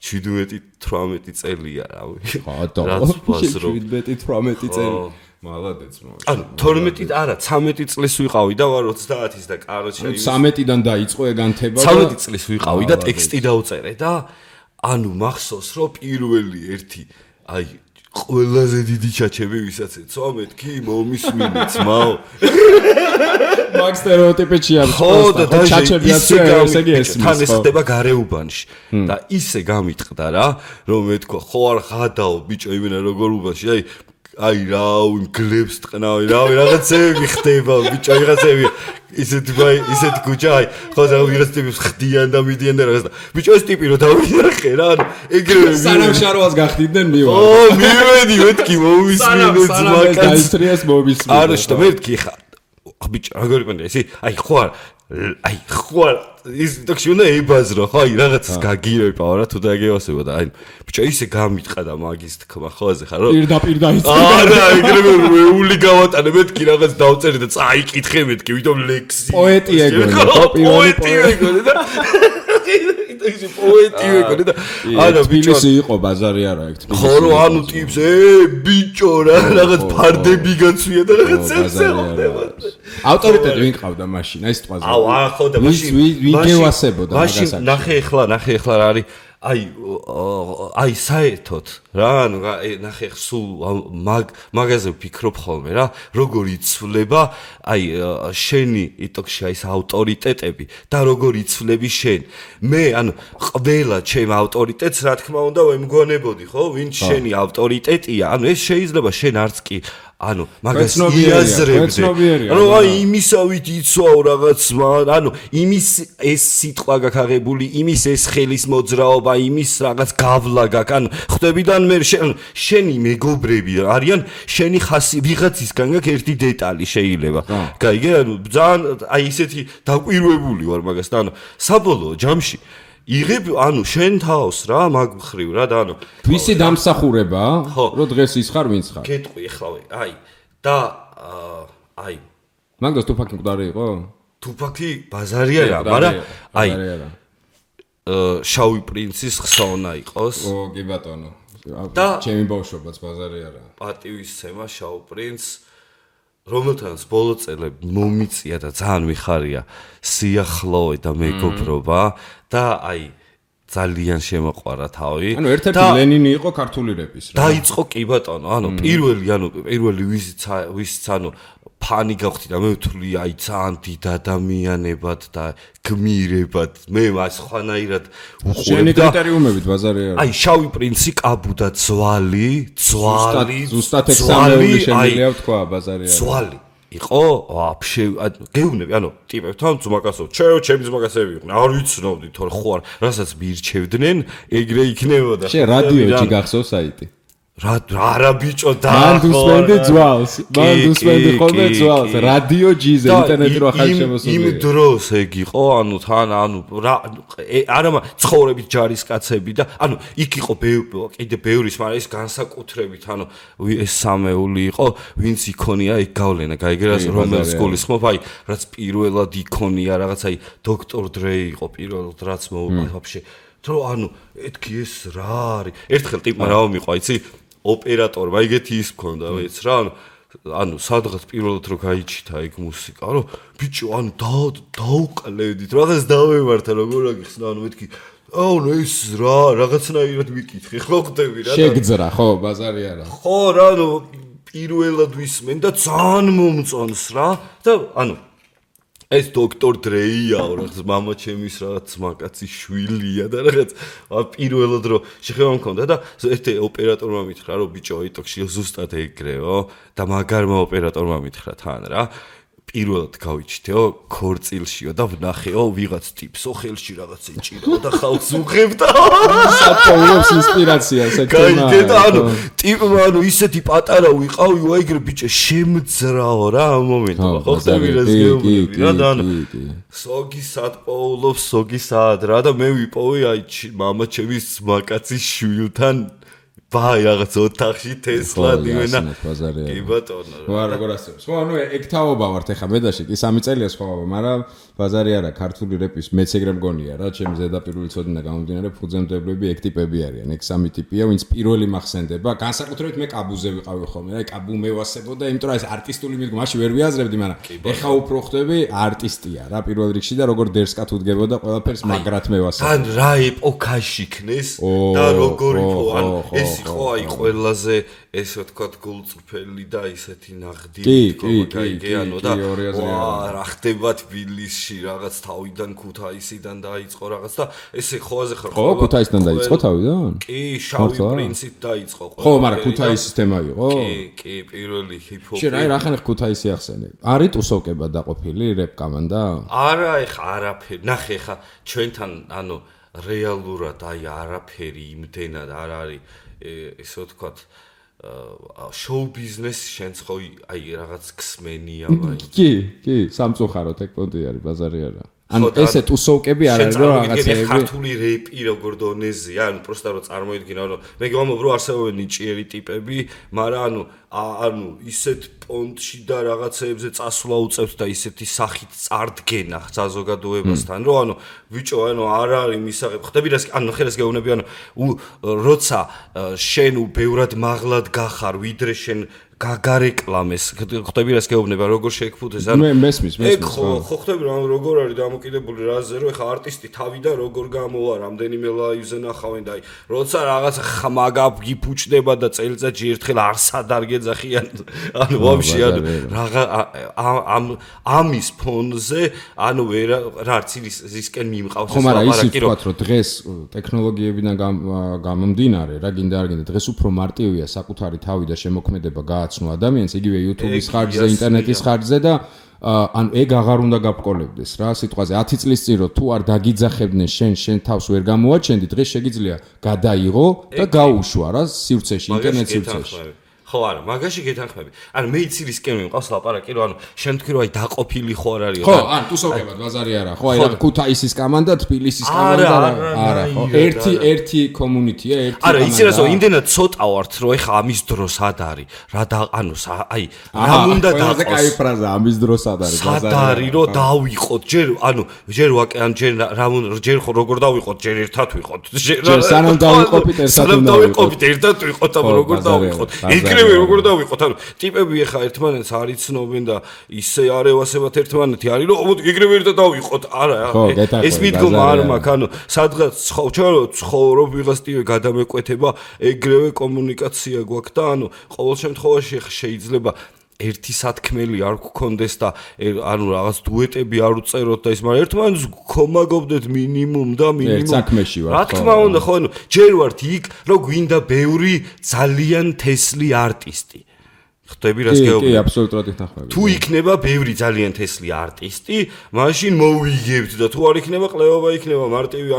17-18 წელია რავი რაც ბაზრო 17-18 წელი მალადეც მოიწყო ანუ 12 არა 13 წლის ვიყავი და ვარ 30-ის და კაროჩე 13-დან დაიწყო ეგანთება და 13 წლის ვიყავი და ტექსტი დავწერე და ანუ მახსოვს რომ პირველი ერთი აი ყველაზე დიდი ჩაჩები ვისაც ეცვა მეთქი მომისმინე ძმაო მაგ სტერეოტიპებში არის ხო და ჩაჩებიაც ესე იგი ესმის თან ეს ხდება გარეუბანში და ისე გამიტყდა რა რომ მეთქვა ხო არ ხადაო ბიჭო იმენა როგორ უბანში აი რაუ გლებს ტყნავი რავი რაღაცები ხდება ბიჭო რაღაცები ისეთ გუჯა აი ხო და ვიღაც ტიპის ხდიან და მიდიან და რაღაც ბიჭო ეს ტიპი რო დავინახე რა ანუ ეგრევე სანამშაროას გახდიდნენ მივარ ო მივედი მეთქი მომისმინე ძმაკაც დაისტრიას მომისმინე არა შტა მეთქი ხა ბიჭო როგორ იყო ეს აი ხო ის ტოქში უნდა ებაზრო ხო აი რაღაცას გაგირებაო რა თუ დაგევასება და აი ბიჭო ისე გამიტყა და მაგის თქმა ხოაზე ხარ რომ პირდაპირ დაიწყე არა ეგრევე მეული გავატანე მეთქი რაღაც დავწერე და წაიკითხე მეთქი ვიდრე ლექსი პოეტი ეგონი პოეტი ეგონი და ისე პოეტი ეგონი და არა ბიჭო იყო ბაზარი არა ეგ თქმა ხო რო ანუ ტიპს ბიჭო რა რაღაც ფარდები გაცვია და რაღაც წელდება ავტორიტეტი ვინ ყავდა მაშინ აი სიტყვაზე ხო და მაშინ ვინ გევასებოდა მაგას ნახე ახლა რა არის აი საერთოდ რა ანუ ნახე სულ მაგაზე ვფიქრობ ხოლმე რა როგორ იცვლება აი შენი იტოქში აი ეს ავტორიტეტები და როგორ იცვლები შენ მე ანუ ყველა ჩემ ავტორიტეტს რა თქმა უნდა ვემგონებოდი ხო ვინც შენი ავტორიტეტია ანუ ეს შეიძლება შენ არც კი ანუ მაგას იაზრებდე რომ აი იმისავით იცვაო რაღაც ანუ იმის ეს სიტყვა გაქაღებული იმის ეს ხელის მოძრაობა იმის რაღაც გავლა გაქვს ანუ ხვდებიდან მე შენი მეგობრები არიან შენი ხასი ვიღაცისგან გაქვს ერთი დეტალი შეიძლება გაიგე ანუ ძალიან აი ისეთი დაკვირვებული ვარ მაგას და ანუ საბოლოო ჯამში იღებ ანუ შენ თავს რა მაგ ხრივ რა და ანუ ვისი დამსახურება რომ დღეს ის ხარ ვინც ხარ გეტყვი ეხლავე აი და აი მაგას თუფაკი მკვდარი იყო თუფაკი ბაზარი არა მაგრამ აი შავი პრინცის ხსოვნა იყოს ო კი ბატონო და ჩემი ბავშვობაც ბაზარი არა პატივისცემა შავ პრინცს რომელთანაც ბოლო წელები მომიწია და ძალიან მიხარია სიახლოვე და მეგობრობა და აი ძალიან შემოყვარა თავი. ანუ ერთ-ერთი ლენინი იყო ქართული რეპის რა. დაიწყო კი ბატონო, ანუ პირველი ვისიც ანუ ფანი გავხდი და მე ვთვლი აი ძალიან დიდ ადამიანებად და გმირებად მე მას ხვანაირად უყურებ და შენი კრიტერიუმებით ბაზარი არა. აი შავი პრინცი კაბუდა ძვალი ზუსტად ექსამენული შემიძლია ვთქვა ბაზარი არა. ძვალი იყო ვაფშე გეუბნები ანუ ტიპებთან ძმაკაცო ჩემი ძმაკაცები იყვნენ არ ვიცნობდი თორე ხო არ რასაც მირჩევდნენ ეგრე იქნებოდა შე რადიოჯი გახსოვს საიტი რა ბიჭო და მან დუსმენდი ძვალს მან დუსმენდი ხოლმე ძვალს რადიო ჯიზე ინტერნეტი რო ახალი შემოსული იმ დროს ეგ იყო ანუ თან ანუ არა ცხოვრებით ჯარისკაცები და ანუ იქ იყო კიდე ბევრის მაგრამ ეს განსაკუთრებით ანუ ეს სამეული იყო ვინც იქონია ეგ გავლენა გაიგერას რომელ სკოლისმობ აი რაც პირველად იქონია რაღაც აი დოქტორ დრეი იყო პირველად რაც ვაფშე თო ანუ ეთქი ეს რა არის ერთხელ ტიპმა რა მომიყვა იცი ოპერატორმა ეგეთი ის მქონდა ვეც რა ანუ სადღაც პირველად რო გაიჩითა ეგ მუსიკა რომ ბიჭო ანუ დაუკლევდით რაღაც დავემართა როგორ აგიხსნა ანუ მეთქი აუ ეს რა რაღაცნაირად ვიკითხე ხო ხდები რა შეგძრა ხო ბაზარი არა ხო რა ანუ პირველად ვისმენ და ძალიან მომწონს რა და ანუ ეს დოქტორ დრეიაო რაღაც мама ჩემის რაღაც მაკაცის შვილია და რაღაც პირველად რო შეხება მქონდა და ერთ ოპერატორმა მითხრა რომ ბიჭო იტოქში ზუსტად ეგრეო და მაგარმა ოპერატორმა მითხრა თან რა პირველად გავიჩითეო ქორწილშიო და ვნახეო ვიღაც ტიპსო ხელში რაღაც ეჭირაო და ხალხს უღებდა საპოულობს ინსპირაციას ეგ თემა გაიგე ანუ ტიპმა ანუ ისეთი პატარა ვიყავი ვაიგრე ბიჭო შემძრაო რა ამ მომენტში ხო ხდები რა გეუბნები რა და ანუ სოგი საპოულობს სოგი საად რა და მე ვიპოვე აი мама ჩემის მაკაცის შვილთან ბაი რაღაც ოთახში თესლა დივენა კი ბატონო რა როგორ ასწავლებს ხო ანუ ეგ თაობა ვართ ეხა მედაში კი 3 წელია სხვა მაგრამ ბაზარი არა ქართული რეპის მეც ეგრე მგონია რა ჩემი ზედაპირული ცოდნა გამომდინარე ფუძემდებლები ეგ ტიპები არიან ეგ 3 ტიპია ვინც პირველი მახსენდება განსაკუთრებით მე კაბუზე ვიყავი ხოლმე რა კაბუ მევასებოდა იმიტომ რომ ეს არტისტული მიდგომა მაშინ ვერ ვიაზრებდი მაგრამ ეხა უფრო ხდები არტისტია რა პირველ რიგში და როგორ დერსკათ უდგებოდა ყველაფერს მაგრად მევასებდა ან რა ეპოქაში ქნეს და როგორ იყო ან ეს იყო აი ყველაზე ესე ვთქვათ გულწრფელი და ისეთი ნაღდი გაიგეანო და რა ხდება თბილისში რაღაც თავიდან ქუთაისიდან დაიწყო რაღაც და ესე ხოაზე ხარ ხო ქუთაისიდან დაიწყო თავიდან კი შავი პრინცით დაიწყო ხო მაგრამ ქუთაისის თემა იყო კი პირველი ჰიპ-ჰოპი შენ აი რახან ქუთაისი ახსენე არის ტუსოვკება დაყოფილი რეპ კომანდა არა ეხა არაფერი ნახე ეხა ჩვენთან ანუ რეალურად აი არაფერი იმდენად არ არის ესე ვთქვათ შოუ ბიზნესი შენც ხო აი რაღაც ქსმენია ვაი კი სამწუხაროდ ეგ პონტი არის ბაზარი არა ანუ ესე ტუსოვკები არ არის რომ რაღაცეები ქართული რეპი როგორ დონეზია ანუ პროსტა რომ წარმოიდგინა რომ მე გвамობ რომ არსებობენ ნიჭიერი ტიპები მაგრამ ანუ ისეთ პონტში და რაღაცეებზე წასვლა უწევთ და ისეთი სახით წარდგენა საზოგადოებასთან რომ ანუ ბიჭო ანუ არ არის მისაღებ ხდები რას ანუ ხელს გეუბნები ანუ როცა შენ ბევრად მაღლად გახარ ვიდრე შენ გაგარეკლამეს ხდები რას გეუბნება როგორ შეეკფუთეს ანუ მე მესმის ხო ხდები რომ როგორ არის დამოკიდებული რაზე რომ ეხა არტისტი თავიდან როგორ გამოვა რამდენიმე ლაივზე ნახავენ და აი როცა რაღაც ხმაგა გიფუჭდება და წელიწადში ერთხელ არსად არ გეძახიან ანუ ვაფშე ანუ რაღა ამის ფონზე ანუ რაც ისკენ მიმყავს ხო მაგრამ ისიც ვთქვათ რომ დღეს ტექნოლოგიებიდან გამომდინარე რა გინდა არ გინდა დღეს უფრო მარტივია საკუთარი თავი და შემოქმედება გააცნო ადამიანს იგივე YouTube-ის ხარჯზე, ინტერნეტის ხარჯზე და ანუ ეგ აღარ უნდა გაბყოლებდეს რა სიტყვაზე 10 წლის წინ რო თუ არ დაგიძახებდნენ შენ თავს ვერ გამოაჩენდი დღეს შეგიძლია გადაიღო და გაუშვა რა სივრცეში ინტერნეტ სივრცეში ხო არა მაგაში გეთანხმები ანუ მე იცი რისკენ მიყავს ლაპარაკი რომ ანუ შენ თქვი რომ აი დაყოფილი ხო არ არისო ხო ან თუსოვკებად ბაზარი არა ხო აი რა ქუთაისის კომანდა თბილისის კომანდა არა ხო ერთი კომუნიტია ერთი არა იცი რა ზო იმდენად ცოტა ვართ რომ ეხა ამის დროსად არის რა და ანუ აი რა უნდა დაყოს კაი ფრაზა ამის დროს ad არის ბაზარი სად არის რომ დავიყოთ ჯერ ანუ ჯერ ვაკე ან ჯერ ხო როგორ დავიყოთ ჯერ ერთად ვიყოთ ჯერ სანამ დავიყოფით ერთად ვიყოთ ამ როგორ დავიყოთ ეგრევე როგორ დავიყოთ ანუ ტიპები ეხა ერთმანეთს არ იცნობენ და ისე არ ევასებათ ერთმანეთი არის რომ ეგრევე ერთად დავიყოთ არა ეს მიდგომა არ მაქვს ანუ სადღაც ცხოვრობ ვიღაც ტიპი გადამეკვეთება ეგრევე კომუნიკაცია გვაქვს და ანუ ყოველ შემთხვევაში შეიძლება ერთი სათქმელი არ გქონდეს და ანუ რაღაც დუეტები არ უწეროთ და ის მაგრამ ერთმანეთს გქომაგობდეთ მინიმუმ და მინიმუმ ერთ საქმეში ვარ რა თქმა უნდა ხო ანუ ჯერ ვართ იქ რომ გვინდა ბევრი ძალიან თესლი არტისტი ხტები რას გეუბნები? კი, აბსოლუტურად ითანხმები. თუ იქნება ბევრი ძალიან თესლი არტისტი, მაშინ მოვიგებთ და თუ არ იქნება ყლევობა იქნება მარტივი,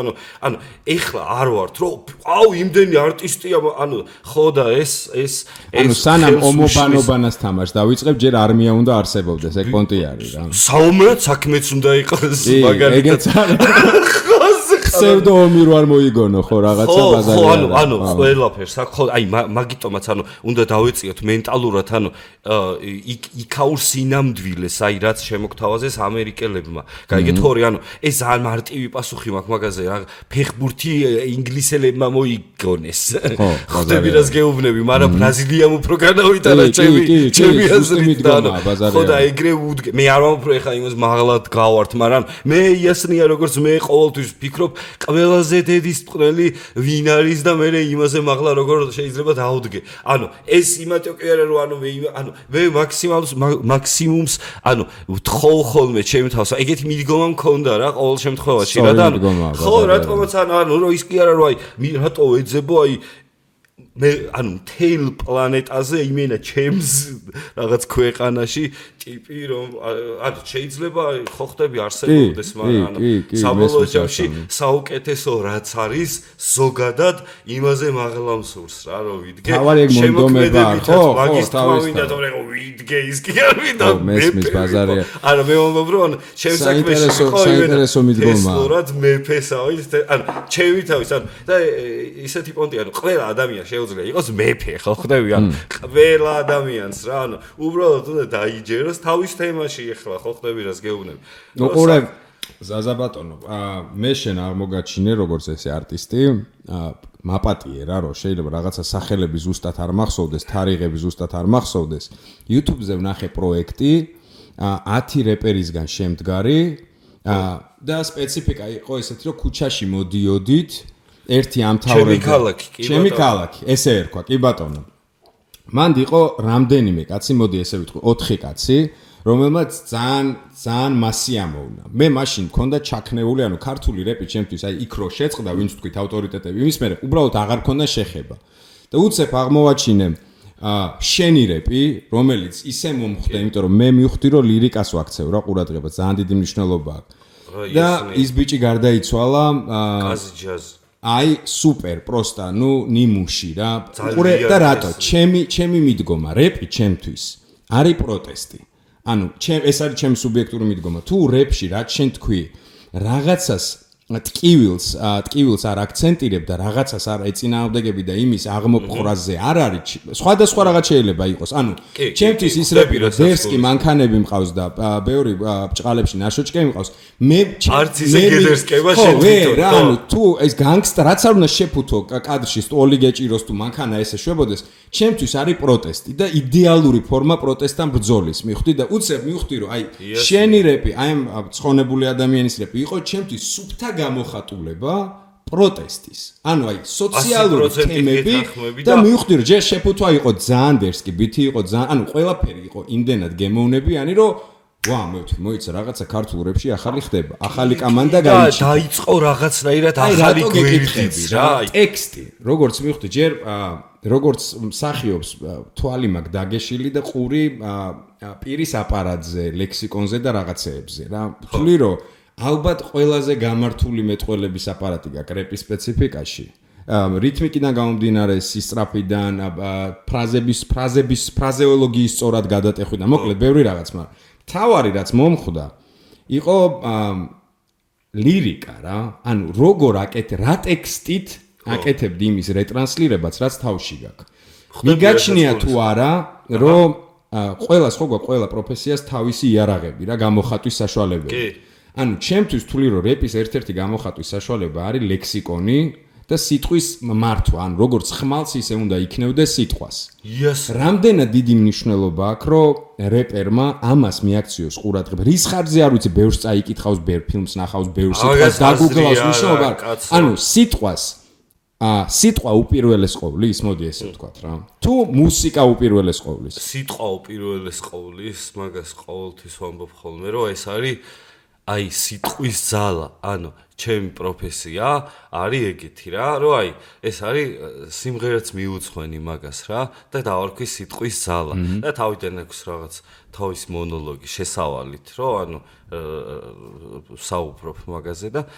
ანუ ეხლა არ ვართ, რომ აუ იმდენი არტისტია, ანუ ხო და ეს ანუ სანამ ომობანობას თამაშს დავიწყებ, ჯერ არმია უნდა არსებობდეს, ეგ პონტი არის რა. საომრად საქმეც უნდა იყოს მაგალითად. ეგეც არის. სევდო ომი რო არ მოიგონო ხო რაღაცა ბაზარი ხო ანუ ყველაფერს ხო აი მაგიტომაც ანუ უნდა დავეციოთ მენტალურად ანუ იქაურ სინამდვილეს აი რაც შემოგთავაზეს ამერიკელებმა გაიგეთ ხორი ანუ ეს ძალიან მარტივი პასუხი მაქვს მაგაზე რა ფეხბურთი ინგლისელებმა მოიგონეს ხდები რას გეუბნები მაგრამ ბრაზილიამ უფრო განავიტანა ჩემი აზრით და ხო და ეგრე უდგე მე არ ვამბობ ეხა იმას მაღლად გავართ მაგრამ მე იასნია როგორც მე ყოველთვის ვფიქრობ ყველაზე დედის წვრილი ვინ არის და მე იმაზე მაღლა როგორ შეიძლება დაუდგე. ანუ ეს იმათო კი არა რომ ანუ მე მაქსიმუმს ანუ ვთხოვ ხოლმე ჩემი თავს. ეგეთი მიდგომა მქონდა რა ყოველ შემთხვევაში რა და ხო რატომაც ანუ რომ ის კი არა რომ აი რატო ეძებო აი მე ანუ მთელ პლანეტაზე იმენა ჩემს რაღაც ქვეყანაში ტიპი რომ ანუ შეიძლება ხო ხდები არსებობდეს მაგრამ ანუ საბოლოო ჯამში საუკეთესო რაც არის ზოგადად იმაზე მაღლა მსურს რა რომ ვიდგე შემოქმედებითად მაგის თავინდა თორე ვიდგე ის კი არ ვიდა მესმის ბაზარია არა მე ვამბობ რომ ჩემს საქმეში ხო საინტერესო მიდგომა სწორად მეფესავით ანუ ჩემი თავის ანუ და ისეთი პონტი ანუ ყველა ადამიანი შეუძლია იყოს მეფე ხო ხდები ანუ ყველა ადამიანს რა ანუ უბრალოდ უნდა დაიჯეროს თავის თემაში ეხლა ხო ხდები რას გეუბნები ნუ ყურე ზაზა ბატონო მე შენ არ მოგაჩინე როგორც ესე არტისტი მაპატიე რა რომ შეიძლება რაღაცა სახელები ზუსტად არ მახსოვდეს თარიღები ზუსტად არ მახსოვდეს YouTube-ზე ვნახე პროექტი 10 რეპერისგან შემდგარი და სპეციფიკა იყო ესეთი რომ ქუჩაში მოდიოდით ერთი ამთავრებდა ჩემი ქალაქი ესე ერქვა კი ბატონო მანდ იყო რამდენიმე კაცი მოდი ესე ვიტყვი 4 კაცი რომელმაც ძალიან მასი ამოვნა მე მაშინ მქონდა ჩაქნეული ანუ ქართული რეპი ჩემთვის აი იქ რო შეწყდა ვინც თქვით ავტორიტეტები იმის მერე უბრალოდ აღარ მქონდა შეხება და უცებ აღმოვაჩინე შენი რეპი რომელიც ისე მომხვდა იმიტომ რომ მე მივხვდი რომ ლირიკას ვაქცევ რა ყურადღება ძალიან დიდი მნიშვნელობა აქვს და ის ბიჭი გარდაიცვალა კაზი ჯაზ აი სუპერ პროსტა ნუ ნიმუში რა ყურე და რატო ჩემი მიდგომა რეპი ჩემთვის არის პროტესტი ანუ ეს არის ჩემი სუბიექტური მიდგომა თუ რეპში რაც შენ თქვი რაღაცას ტკივილს არ აქცენტირებ და რაღაცას არ ეწინააღმდეგები და იმის აღმოფხვრაზე არ არის სხვადასხვა რაღაც შეიძლება იყოს ანუ ჩემთვის ის რეპი რომ დერსკი მანქანები მყავს და ბევრი ბჭყალებში ნაშოჭკები მყავს მე არც ისე გედერსკება შენ თვითონ რა ანუ თუ ეს განგსტა რაც არ უნდა შეფუთო კადრში სტოლი გეჭიროს თუ მანქანა ესე შვებოდეს ჩემთვის არის პროტესტი და იდეალური ფორმა პროტესტთან ბრძოლის მივხვდი და უცებ მივხვდი რომ აი შენი რეპი აი ცხონებული ადამიანის რეპი იყო ჩემთვის სუფთა გამოხატულება პროტესტის. ანუ აი სოციალური თემები და მივხვდი რომ ჯერ შეფუთვა იყო ძალიან დერსკი, ბითი იყო ძალიან, ანუ ყველაფერი იყო იმდენად გემოვნებიანი, რომ ვა, მე ვთქვი, მოიცა რაღაცა ქართულ რეპში ახალი ხდება. ახალი კომანდა გაიჩი. დაიწყო რაღაცნაირად ახალი გვერდიც რა. ტექსტი, როგორც მივხვდი, ჯერ როგორც მსახიობს თვალი მაქვს დაგეშილი და ყური პირის აპარატზე, ლექსიკონზე და რაღაცეებზე რა. ვთვლი რომ ალბათ ყველაზე გამართული მეტყველების აპარატი გაქვს რეპის სპეციფიკაში რითმიკიდან გამომდინარე სისწრაფიდან, ფრაზეოლოგიის სწორად გადატეხვიდან, მოკლედ ბევრი რაღაც, მაგრამ თავარი რაც მომხვდა, იყო ლირიკა რა, ანუ როგორ რა ტექსტით აკეთებდი იმის რეტრანსლირებაც, რაც თავში გაქვს. მიგაჩნია თუ არა, რომ ყველა პროფესიას თავისი იარაღები რა გამოხატვის საშუალებები. ანუ ჩემთვის თვლი რომ რეპის ერთ-ერთი გამოხატვის საშუალება არის ლექსიკონი და სიტყვის მართვა, ანუ როგორც ხმალს ისე უნდა იქნევდეს სიტყვას. რამდენად დიდი მნიშვნელობა აქვს, რომ რეპერმა ამას მიაქციოს ყურადღება. რის ხარჯზე არ ვიცი, ბევრს წაიკითხავს, ბევრ ფილმს ნახავს, ბევრ სიტყვას დაგუგლავს მნიშვნელობა. ანუ სიტყვა უპირველეს ყოვლის, მოდი ესე ვთქვათ რა. თუ მუსიკა უპირველეს ყოვლის. სიტყვა უპირველეს ყოვლის, მაგას ყოველთვის ვამბობ ხოლმე, რომ ეს არის აი სიტყვის ძალა, ანუ ჩემი პროფესია არის ეგეთი რა, რომ აი ეს არის სიმღერაც მიუძღვენი მაგას რა და დავარქვის სიტყვის ძალა და თავიდან აქვს რაღაც თავის მონოლოგი შესავალით, რომ ანუ საუბრობ მაგაზე და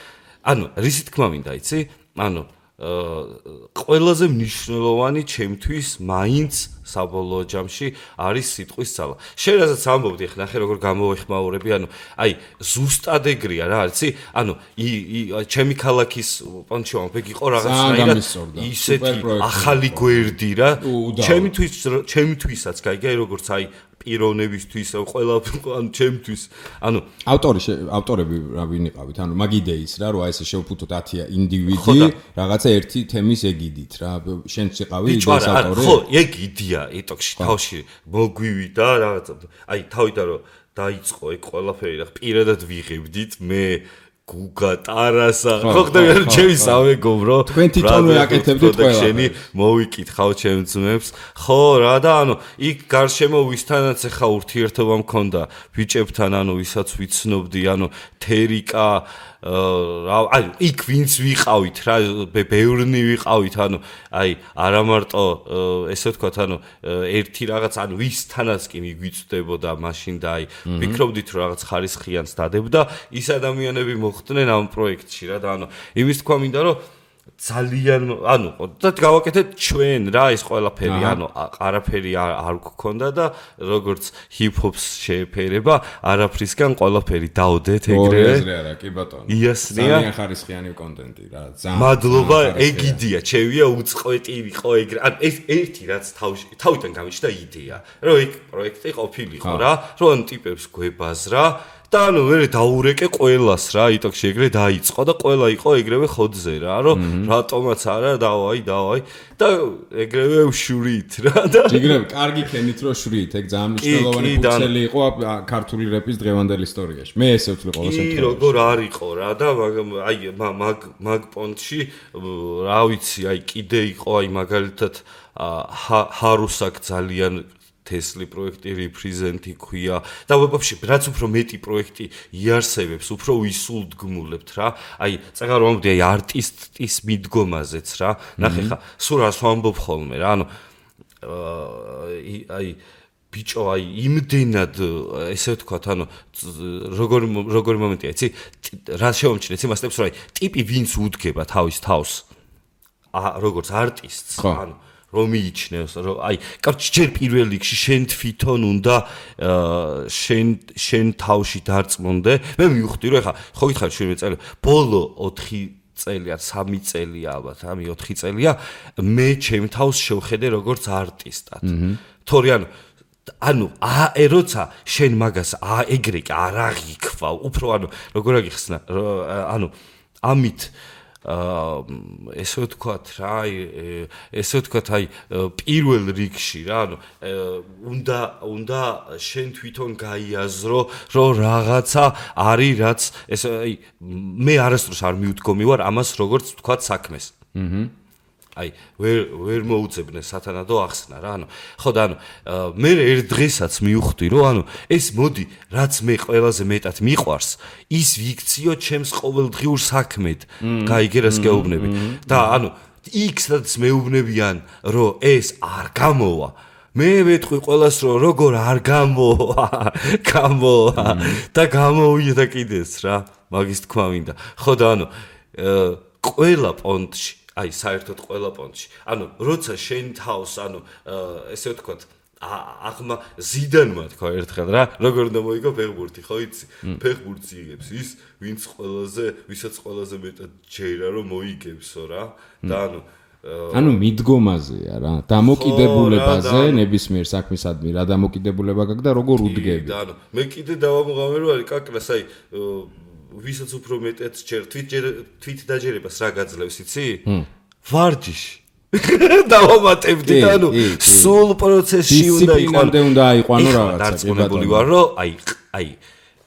ანუ რისი თქმა მინდა იცი? ანუ ყველაზე მნიშვნელოვანი ჩემთვის მაინც საბოლოო ჯამში არის სიტყვის ძალა. შენ რასაც ამბობდი, ახლა ნახე როგორ გამოვეხმაურები, ანუ აი ზუსტად ეგრეა რა, იცი? ანუ ჩემი ქალაქის პონჩი ვამბობ, იყო რაღაცნაირად ისეთი ახალი გვერდი რა. ჩემთვისაც გაიგე როგორც აი პიროვნებისთვის, ყველა ანუ ჩემთვის, ანუ ავტორები რა ვინ იყავით, ანუ მაგ იდეის რა, რომ აი ესე შევფუთოთ 10 ინდივიდი, რაღაცა ერთი თემის ეგიდით რა. შენც იყავი იდეის ავტორი? ხო, ეგ იდეა, იტოქში თავში მოგვივიდა რაღაცა. აი თავიდან რომ დაიწყო ეგ ყველაფერი რა, პირადად ვიღებდით მე გუგა ტარასა ხო ხდება ჩემი სამეგობრო თქვენ თვითონვე აკეთებდით ყველა მოვიკითხავ ჩემ ძმებს ხო რა და ანუ იქ გარშემო ვისთანაც ახლა ურთიერთობა მქონდა ბიჭებთან ანუ ვისაც ვიცნობდი ანუ თერიკა რა აი იქ ვინც ვიყავით რა ბევრნი ვიყავით ანუ აი არა მარტო ესე ვთქვათ ანუ ერთი რაღაც ანუ ვისთანაც კი მიგვიწდებოდა მაშინ და აი ვფიქრობდით რომ რაღაც ხარისხიანს დადებდა ის ადამიანები მოხდნენ ამ პროექტში რა და ანუ იმის თქვა მინდა რომ ძალიან ანუ და გავაკეთეთ ჩვენ რა ის ყველაფერი ანუ არაფერი არ გქონდა და როგორც ჰიპ-ჰოპს შეეფერება არაფრისგან ყველაფერი დაოდეთ ეგრევე არა კი ბატონო იასნია ძალიან ხარისხიანი კონტენტი რა ძალიან მადლობა ეგიდია ჩემია უწყვეტი იყო ეგრე ან ეს ერთი რაც თავიდან გამიჩნდა იდეა რომ ეგ პროექტი ყოფილიყო რა რომ ტიპებს გვებაზრა და ანუ მე დაურეკე ყველას რა იტოქში ეგრე დაიწყო და ყველა იყო ეგრევე ხოძზე რა რომ რატომაც არა დავაი და ეგრევე ვშურით რა და ეგრევე კარგი ქენით რომ შურით ეგ ძალიან მნიშვნელოვანი ფუძელი იყო ქართული რეპის დღევანდელ ისტორიაში მე ესე ვთვლი ყოველ შემთხვევაში როგორ არისო რა და აი მაგ პონტში რა ვიცი აი კიდე იყო აი მაგალითად ჰარუსაკ ძალიან თესლი პროექტი რეპრეზენტი ქვია და ვებებში რაც უფრო მეტი პროექტი იარსებებს უფრო ვისულდგმულებთ რა აი წეგარ ვამბობდი აი არტისტის მიდგომაზეც რა ნახე ხა სულ რას ვამბობ ხოლმე რა ანუ აი ბიჭო აი იმდენად ესე ვთქვათ ანუ როგორი მომენტია იცი რა შევამჩნიეთ იმასტებს რომ აი ტიპი ვინც უდგება თავის თავს როგორც არტისტს ანუ რომ მიიჩნევს რომ აი კარგი ჯერ პირველ რიგში შენ თვითონ უნდა შენ თავში დარწმუნდე მე მივხვდი რომ ეხა ხო გითხარ შენ მეწელი ბოლო 4 წელი ან 3 წელია ალბათ ამი 4 წელია მე ჩემ თავს შევხედე როგორც არტისტად თორე ანუ როცა შენ მაგას ეგრე კი არ აღიქვა უფრო ანუ როგორ აგიხსნა ანუ ამით ესე ვთქვათ რა ესე ვთქვათ აი პირველ რიგში რა ანუ უნდა შენ თვითონ გაიაზრო რომ რაღაცა არის რაც ესე აი მე არასდროს არ მივდგომი ვარ ამას როგორც ვთქვათ საქმეს აი ვერ მოუწებნე სათანადო ახსნა რა ანუ ხო და ანუ მე ერთ დღესაც მივხვდი რომ ანუ ეს მოდი რაც მე ყველაზე მეტად მიყვარს ის ვიქციო ჩემს ყოველდღიურ საქმედ გაიგე რას გეუბნები და ანუ იქ-სადაც მეუბნებიან რომ ეს არ გამოვა მე ვეთქვი ყველას რომ როგორ არ გამოვა და გამოვიდა კიდეც რა მაგის თქვა მინდა ხო და ანუ ყველა პონტში აი საერთოდ ყველა პონტში. ანუ როცა შენ თავს, ანუ ესე ვთქვათ, აღმა ზიდანმა თქვა ერთხელ რა, როგორ უნდა მოიგო ფეხბურთი, ხო იცი? ფეხბურთს იღებს ის, ვისაც ყველაზე მეტად ჯერა რომ მოიგებსო რა. და ანუ მიდგომაზეა რა, დამოკიდებულებაზე, ნებისმიერ საქმისადმი რა დამოკიდებულება გაქვს და როგორ უდგები. და ანუ მე კიდე დავამღამე რომ არის კაკრას, აი ვისაც უფრო მეტად ჯერ თვით დაჯერებას რა გაძლევს, იცი? ვარჯიში. დავამატებდი და ანუ სულ პროცესში უნდა დისციპლინამდე უნდა აიყვანო რაღაცა. დარწმუნებული ვარ რომ აი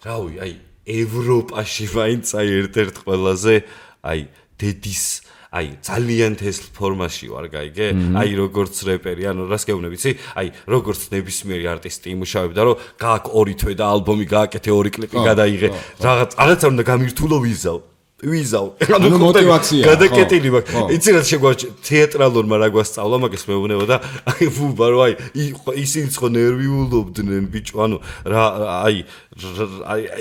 რავი, აი ევროპაში მაინც აი ერთ-ერთ ყველაზე აი დედის აი ძალიან თესლ ფორმაში ვარ, გაიგე? აი როგორც რეპერი, ანუ რას გეუბნები, იცი? აი როგორც ნებისმიერი არტისტი იმუშავებდა, რომ გააკ 2 თვე და ალბომი გააკეთე 2 კლიპი გადაიღე. რაღაცა უნდა გამირთულო ვიზავ. ანუ мотиваცია. გადაკეტილი მაქვს. იცი რა შეგვაჭ თეატრალურმა რა გვასწავლა, მაგას მეუბნება და აი ვუბა რომ აი ისინი ხო ნერვიულობდნენ ბიჭო, ანუ რა აი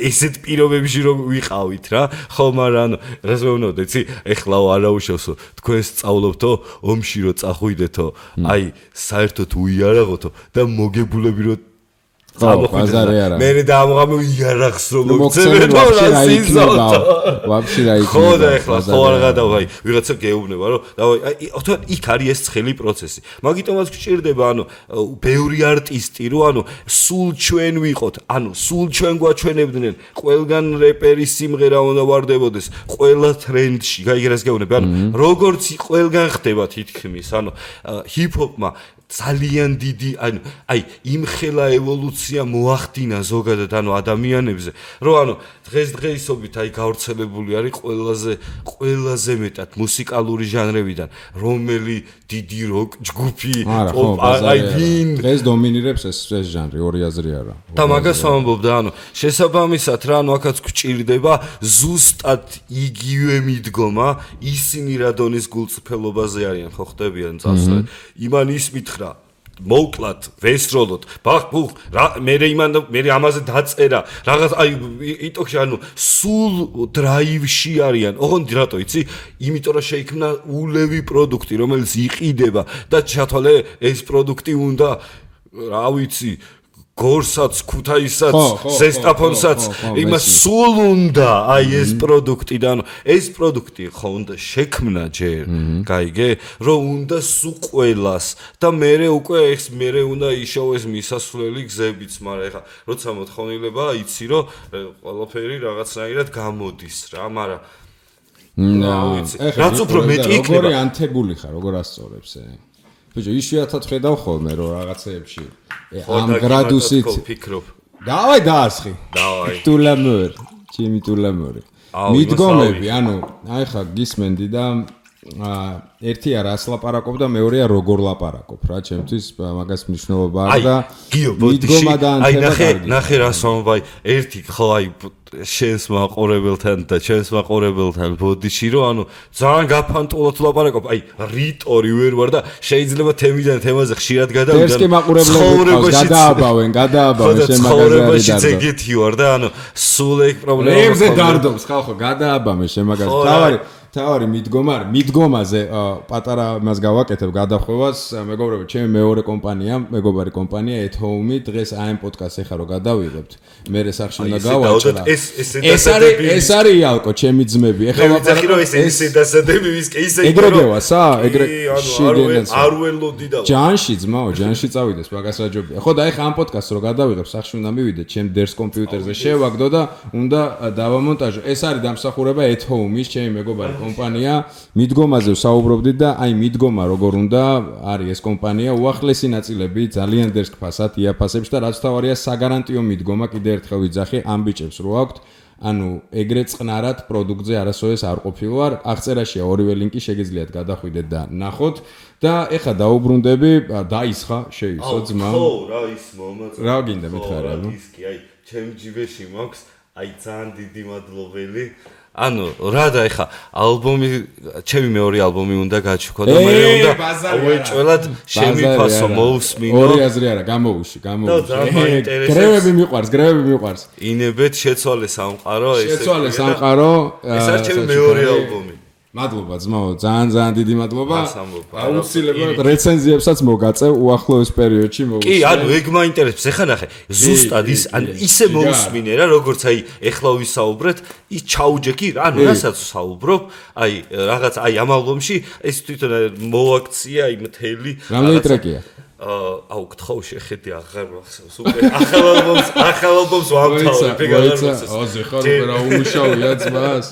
ესეთ პირობებში რომ ვიყავით რა. ხო, მაგრამ ანუ რას მეუბნებოდა, იცი? ეხლა არაუშავსო, თქვენ სწავლობთო, ომში რო წახვიდეთო, აი საერთოდ უიარაღოთო და მოგებულები რო მე დაამღამე იარაღს რომ მოგცემენ და რა იქნება ვაფშე რა იქნება ხო და ეხლა ხო არ გადავაი ვიღაცა გეუბნება რომ აი იქ არის ეს ცხელი პროცესი მაგიტომაც გჭირდება ანუ ბევრი არტისტი რომ ანუ სულ ჩვენ ვიყოთ ანუ სულ ჩვენ გვაჩვენებდნენ ყველგან რეპერის სიმღერა უნდა ვარდებოდეს ყველა ტრენდში გაიგრას გეუბნები ანუ როგორც ყველგან ხდება თითქმის ანუ ჰიპ-ჰოპმა ძალიან დიდი აი იმხელა ევოლუცია მოახდინა ზოგადად ანუ ადამიანებზე რომ ანუ დღესდღეობით აი გავრცელებული არის ყველაზე მეტად მუსიკალური ჟანრებიდან რომელი დიდი როკ ჯგუფი აი ვინ დღეს დომინირებს ეს ჟანრი ორი აზრი არა და მაგას ვამბობ და ანუ შესაბამისად რა ანუ აქაც გვჭირდება ზუსტად იგივე მიდგომა ისინი რა დონის გულწრფელობაზე არიან ხო ხდებიან წასვლა იმან ის მითხრა მოვკლათ ვესროლოთ ბახ რა მე ამაზე დაწერა რაღაც აი იტოქში ანუ სულ დრაივში არიან ოღონდ რატო იცი იმიტომ რომ შეიქმნა ულევი პროდუქტი რომელიც იყიდება და ჩათვალე ეს პროდუქტი უნდა რა ვიცი გორსაც, ქუთაისაც, ზესტაფონსაც, იმას სულ უნდა აი ეს პროდუქტი და ანუ ეს პროდუქტი ხო უნდა შექმნა ჯერ, გაიგე, რომ უნდა სულ ყველას და მე უკვე ეს მე უნდა იშოვეს მისასვლელი გზებიც, მაგრამ ეხლა როცა მოთხოვნილება იცი რომ ყველაფერი რაღაცნაირად გამოდის რა, მაგრამ რაც უფრო მეტი იქნება, როგორი ანთებული ხარ, როგორ ასწორებს ბიჭო, იშვიათად ხედავ ხოლმე რომ რაღაცეებში ამ გრადუსით ფიქრობ. დავაი დაასხი. დავაი. ტულამორ, ჩემი ტულამორი. მიდგომები, ანუ აი ხა გისმენდი და ერთი არას ლაპარაკობ და მეორეა როგორ ლაპარაკობ რა, ჩემთვის მაგას მნიშვნელობა აქვს და მიდგომა და ანთება კარგი. ნახე რას ვამბობ, ერთი ხო აი შენს მაყურებელთან და ჩემს მაყურებელთან ბოდიში რომ ანუ ძალიან გაფანტულად ლაპარაკობ აი რიტორი ვერ ვარ და შეიძლება თემიდან თემაზე ხშირად გადავიდე ეს კი მაყურებლები გადააბავენ შენ მაგაზე არის ეგეთი ვარ და ანუ სულ ეგ პრობლემა რებზე დარდობს ხალხო გადააბამე შენ მაგაზე თავარი მიდგომაზე პატარა მას გავაკეთებ გადახვევას მეგობრებო ჩემი მეორე კომპანია მეგობარი კომპანია ეთჰოუმი დღეს აი ამ პოდკასტს ეხა რომ გადავიღებთ მე სახში უნდა გავაჭრა ეს არის იალკო ჩემი ძმები ეხა ვაფიქრი რომ ეს დასადები ვისკე ისე ეგრეგევასა ეგრე არ ველოდი და ჯანში ძმაო ჯანში წავიდეს მაგას აჯობია ხო და ეხა ამ პოდკასტს რომ გადავიღებ სახში უნდა მივიდე ჩემ დერს კომპიუტერზე შევაგდო და უნდა დავამონტაჟო ეს არის დამსახურება ეთჰოუმის ჩემი მეგობარი კომპანია მიდგომაზე ვსაუბრობდით და აი მიდგომა როგორ უნდა არის ეს კომპანია უახლესი ნაწილები ძალიან დერს ფასად იაფასებს და რაც თავარია საგარანტიო მიდგომა კიდე ერთხელ ვიძახი ამ ბიჭებს რო აქვთ ანუ ეგრე წყნარად პროდუქტზე არასოდეს არ ყოფილვარ აღწერაშია ორივე ლინკი შეგიძლიათ გადახვიდეთ და ნახოთ და ეხა დაუბრუნდები დაისხა შეისო ძმა ხო რა ის მომაც რა გინდა მითხარა ნუ ის კი აი ჩემ ჯიბეში მაქვს აი ძალიან დიდი მადლობელი ანუ რა და ეხა ალბომი ჩემი მეორე ალბომი უნდა გაჩუქო და მე უნდა უეჭველად შემიფასო მოусმინო ორი აზრი არა გამოუში გრევები მიყვარს ინებეთ შეცვალე სამყარო ეს არის ჩემი მეორე ალბომი მადლობა ძმაო, ძალიან დიდი მადლობა. ამბობ. აუცილებლად რეცენზიებსაც მოგაწევ უახლოეს პერიოდში მოგწევ. კი, ანუ ეგ მაინტერესებს. ეხლა ნახე, ზუსტად ის ანუ ისე მოусმინე რა, როგორც აი ეხლა ვისაუბრეთ, ის ჩაუჯექი, ანუ რასაც ვსაუბრობ, აი რაღაც აი ამ ალბომში ეს თვითონ მოაქცია აი მთელი რამდენი ტრეკია? აუ გთხოვ შეხედე აღარ მახსოვს უკვე ახალ ალბომს ვამთავრებ ეგ აღარ მახსოვს აზე ხარ უკვე რა უმუშავია ძმას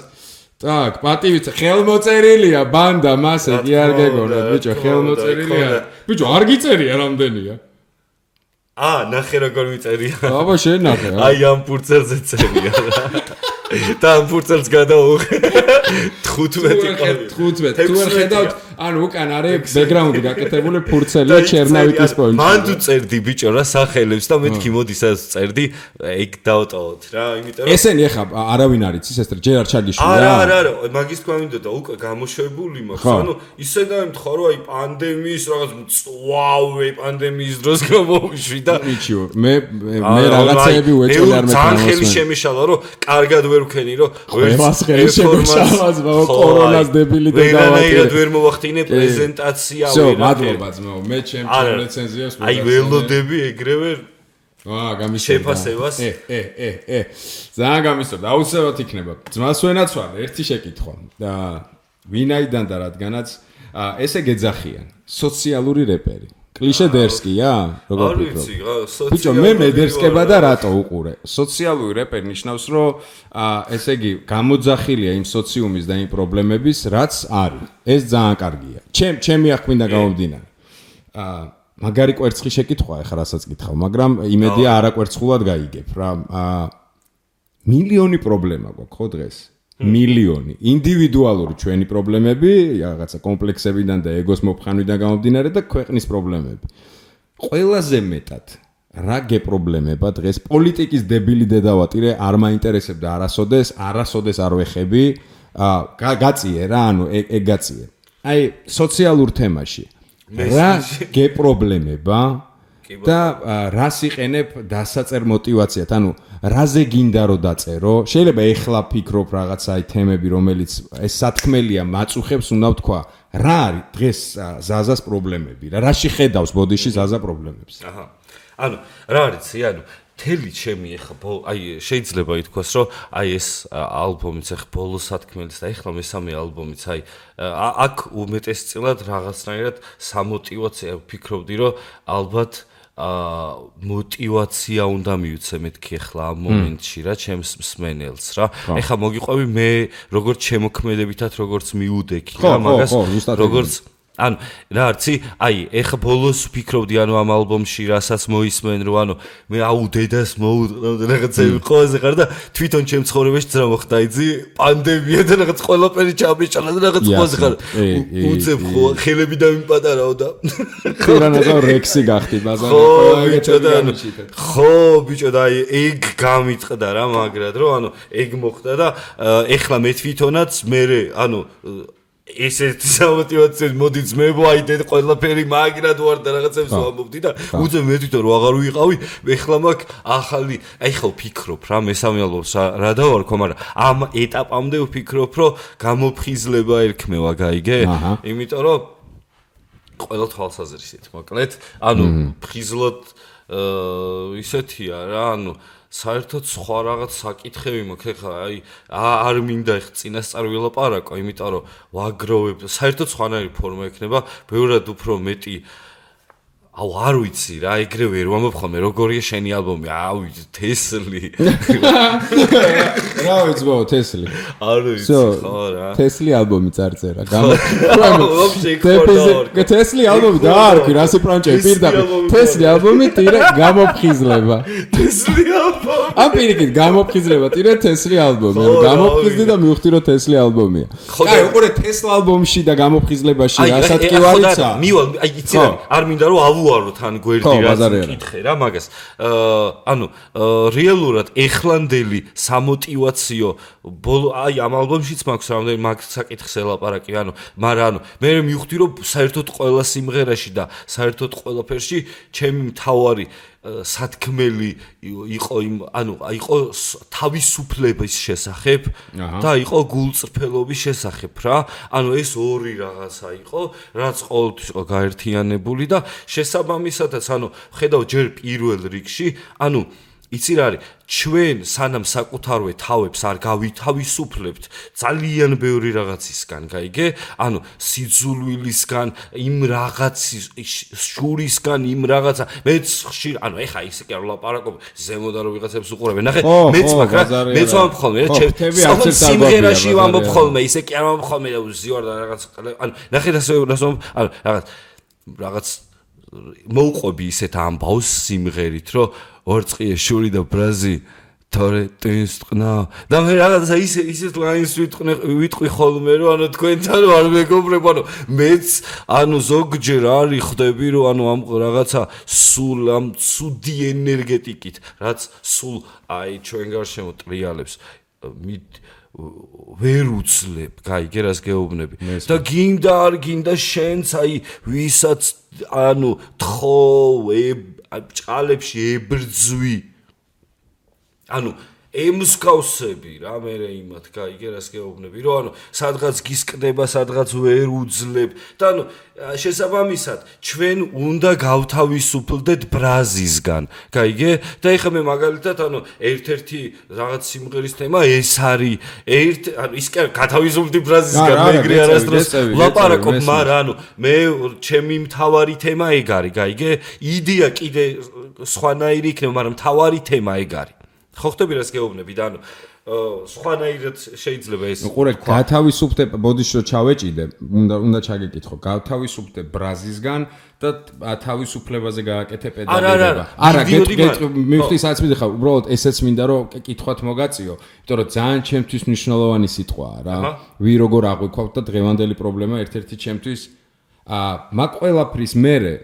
так პატივით ხელმოწერილია ბანდა მასე კი არ გეგონოთ ბიჭო ხელმოწერილია ბიჭო არ გიწერია რამდენია ნახე როგორ მიწერია აბა შენ ნახე აი ამ პურცელზე წერია და ამ პურცელს გადაუღე 15 თუ არ ხედავთ ანუ უკან არის ბექგრაუნდი გაკეთებული ფურცელია ჩერნავიკის პოინტი მან თუ წერდი ბიჭო რა სახელებს და მეთქი მოდი სადაც წერდი ეგ დავტოვოთ რა იმიტომ რომ ესენი ეხა არავინ არის ის ეს ჯერ არ ჩაგიშვია არა მაგის თქვა მინდოდა უკვე გამოშვებული მაქვს ანუ ისე დაემთხვა რომ აი პანდემიის რაღაც მწვავე პანდემიის დროს გამოვიშვი და მიჩიო მე რაღაცეები უეჭველი არ მექნა ძალიან ხელი შემიშალა რომ კარგად ვერ ვქენი რომ ყველას ხელი შემიშალა ზმაო კორონას დებილი და ვერანაირად ვერ მოვახდინე პრეზენტაცია ვერა მადლობა ძმაო მე ჩემ რეცენზიას აი ველოდები ეგრევე გამისწორდა შეფასებას ძალიან გამისწორდა აუცილებლად იქნება ძმას ვენაცვალე ერთი შეკითხვა და ვინაიდან და რადგანაც ესე გეძახიან სოციალური რეპერი კლიშე დერსკია როგორ ფიქრობ ბიჭო მე მედერსკება და რატო უყურე სოციალური რეპერი ნიშნავს რომ ესე იგი გამოძახილია იმ სოციუმის და იმ პრობლემების რაც არის ეს ძალიან კარგია ჩემი აღკვინდა გამომდინარე მაგარი კვერცხი შეკითხვა ეხლა რასაც გითხავ მაგრამ იმედია არაკვერცხულად გაიგებ რა მილიონი პრობლემა გვაქვს ხო დღეს მილიონი ინდივიდუალური ჩვენი პრობლემები, რაღაცა კომპლექსებიდან და ეგოს მოფხანვიდან გამომდინარე და ქვეყნის პრობლემები. ყველაზე მეტად რა გეპრობლემება დღეს პოლიტიკის დებილი დედავატირე არ მაინტერესებდა არასოდეს არ ვეხები, გაწიე რა, ანუ ეგ გაწიე. აი სოციალურ თემაში რა გეპრობლემება და რას იყენებ დასაწერ მოტივაციად, ანუ რაზე გინდა რომ დაწერო? შეიძლება ეხლა ფიქრობ რაღაცა აი თემები, რომელიც ეს სათქმელია მაწუხებს, უნდა ვთქვა, რა არის დღეს ზაზას პრობლემები? რაში ხედავს ბოდიში ზაზა პრობლემებს? ანუ რა არის, ანუ თელი ჩემი ეხლა აი შეიძლება ითქვას, რომ აი ეს ალბომიც ეხლა ბოლო სათქმელის და ეხლა მესამე ალბომიც აი აქ უმეტესწილად რაღაცნაირად სამოტივაციო ვფიქრობდი, რომ ალბათ მოტივაცია უნდა მივცე მეთქი ახლა ამ მომენტში რა ჩემს მსმენელს რა ეხლა მოგიყვები მე როგორც შემოქმედებითად როგორც მიუდექი რა მაგას როგორც ანუ რა არცი აი ეხლა ბოლოს ვფიქრობდი ანუ ამ ალბომში რასაც მოისმენ რომ ანუ მე აუ დედას მოუწყდა რაღაცები ყველაზე ხარ და თვითონ ჩემ ცხოვრებაში ძრა მოხდა იცი პანდემია და რაღაც ყველაფერი ჩამიშალა და რაღაც ყველაზე ხარ უცებ ხო ხელები დამიპატარაო და ხერანაზა რექსი გახდი ბაზარი ხო ბიჭო და აი ეგ გამიტყდა რა მაგრად რომ ანუ ეგ მოხდა და ეხლა მე თვითონაც მე ანუ ესეთი სამოტივაციო მოდი ძმებო აი დედ ყველაფერი მაგრად ვარ და რაღაცებს ვამბობდი და უძე მე თვითონ რო აღარ ვიყავი ეხლა მაგ ახალი აი ხო ვფიქრობ რა მესამე ალბომს რა დავარქვა მაგრამ ამ ეტაპამდე ვფიქრობ რომ გამოფხიზლება ერქმევა გაიგე იმიტომ რომ ყველა თვალსაზრისით მოკლედ ანუ ფხიზლად ისეთია რა ანუ საერთოდ სხვა რაღაც საკითხები მაქვს ხა აი არ მინდა ხ წინასწარ ვილაპარაკო იმიტომ რომ ვაგროვებ საერთოდ სხვანაირი ფორმა ექნება ბევრად უფრო მეტი აუ არ ვიცი რა ეგრე ვერ ვამბობ ხოლმე როგორია შენი ალბომი აუ თესლი რა ვიცი თესლი არ ვიცი ხო რა თესლი ალბომი წარწერა თესლი ალბომი და არ კი რასი პრანჭები პირდაპირ თესლი ალბომი ტირა გამოფხიზლება თესლი ალბომი ამ პირიქით გამოფხიზლება ტირა თესლი ალბომი გამოფხიზდი და მივხვდი რომ თესლი ალბომია კაი უყურე თესლა ალბომში და გამოფხიზლებაში რასაც კი ვარიცა მივალ აი იცი რა არ მინდა რომ ავუაროთ ან გვერდი რაც კითხე რა მაგას ანუ რეალურად ეხლანდელი სამოტივაციო ბოლო აი ამ ალბომშიც მაქვს რამდენი მაგ საკითხს ელაპარაკი ანუ მაგრამ ანუ მე მივხვდი რომ საერთოდ ყველა სიმღერაში და საერთოდ ყველაფერში ჩემი მთავარი სათქმელი იყო იყო თავისუფლების შესახებ და იყო გულწრფელობის შესახებ რა. ეს ორი რაღაცა იყო, რაც ყოველთვის იყო გაერთიანებული და შესაბამისადაც ხედავ ჯერ პირველ რიგში, იცი რა არის, ჩვენ სანამ საკუთარვე თავებს არ გავითავისუფლებთ ძალიან ბევრი რაღაცისგან, გაიგე? სიძულვილისგან, იმ რაღაცის შურისგან, იმ რაღაცა, მეც ხშირ, ეხა ისე კი არ ვლაპარაკობ, ზემოდან რომ ვიღაცებს უყურებენ. ნახე, მეც მაგრამ მეც ვამბობ ხოლმე, სიმღერაში ვამბობ ხოლმე, ისე კი არ ვამბობ ხოლმე, ზივარ და რაღაც, ნახე რაღაც მოუყვები ისეთ ამბავს სიმღერით, რომ ორწყიე შური და ბრაზი თორე ტვინს ტყნა და მე რაღაცა ისეთ ლაინს ვიტყვი ხოლმე რომ თქვენთან არ მეგობრებ მეც ზოგჯერ არის ხვდები რომ ამ რაღაცა სულ ამ ცუდი ენერგეტიკით რაც სულ ჩვენ გარშემო ტრიალებს ვერ უძლებ, გაიგე რას გეუბნები და გინდა არ გინდა შენც ვისაც თხოვ ჭყალებში ებრძვი ემსგავსები რა მე იმათ გაიგე რას გეუბნები რომ სადღაც გისკდება სადღაც ვერ უძლებ და შესაბამისად ჩვენ უნდა გავთავისუფლდეთ ბრაზისგან გაიგე და ეხლა მე მაგალითად ერთ-ერთი რაღაც სიმღერის თემა ეს არის ის კი გათავისუფლდი ბრაზისგან მე ეგრე არასდროს ვლაპარაკობ მაგრამ მე ჩემი მთავარი თემა ეგ არის გაიგე იდეა კიდე სხვანაირი იქნება მაგრამ მთავარი თემა ეგ არის ხო ხტები რას გეუბნები და სხვანაირად შეიძლება ეს უყურე გათავისუფლდე ბოდიში რომ ჩავეჭიდე უნდა ჩაგეკითხო გათავისუფლდე ბრაზისგან და თავისუფლებაზე გააკეთე პედაგოგება არა მივხვდი სადაც მიდიხარ უბრალოდ ესეც მინდა რომ კითხვათ მოგაწიო იმიტომ რომ ძალიან ჩემთვის მნიშვნელოვანი სიტყვაა რა ვი როგორ აღვიქვავთ და დღევანდელი პრობლემა ერთ-ერთი ჩემთვის მაგ ყველაფრის მერე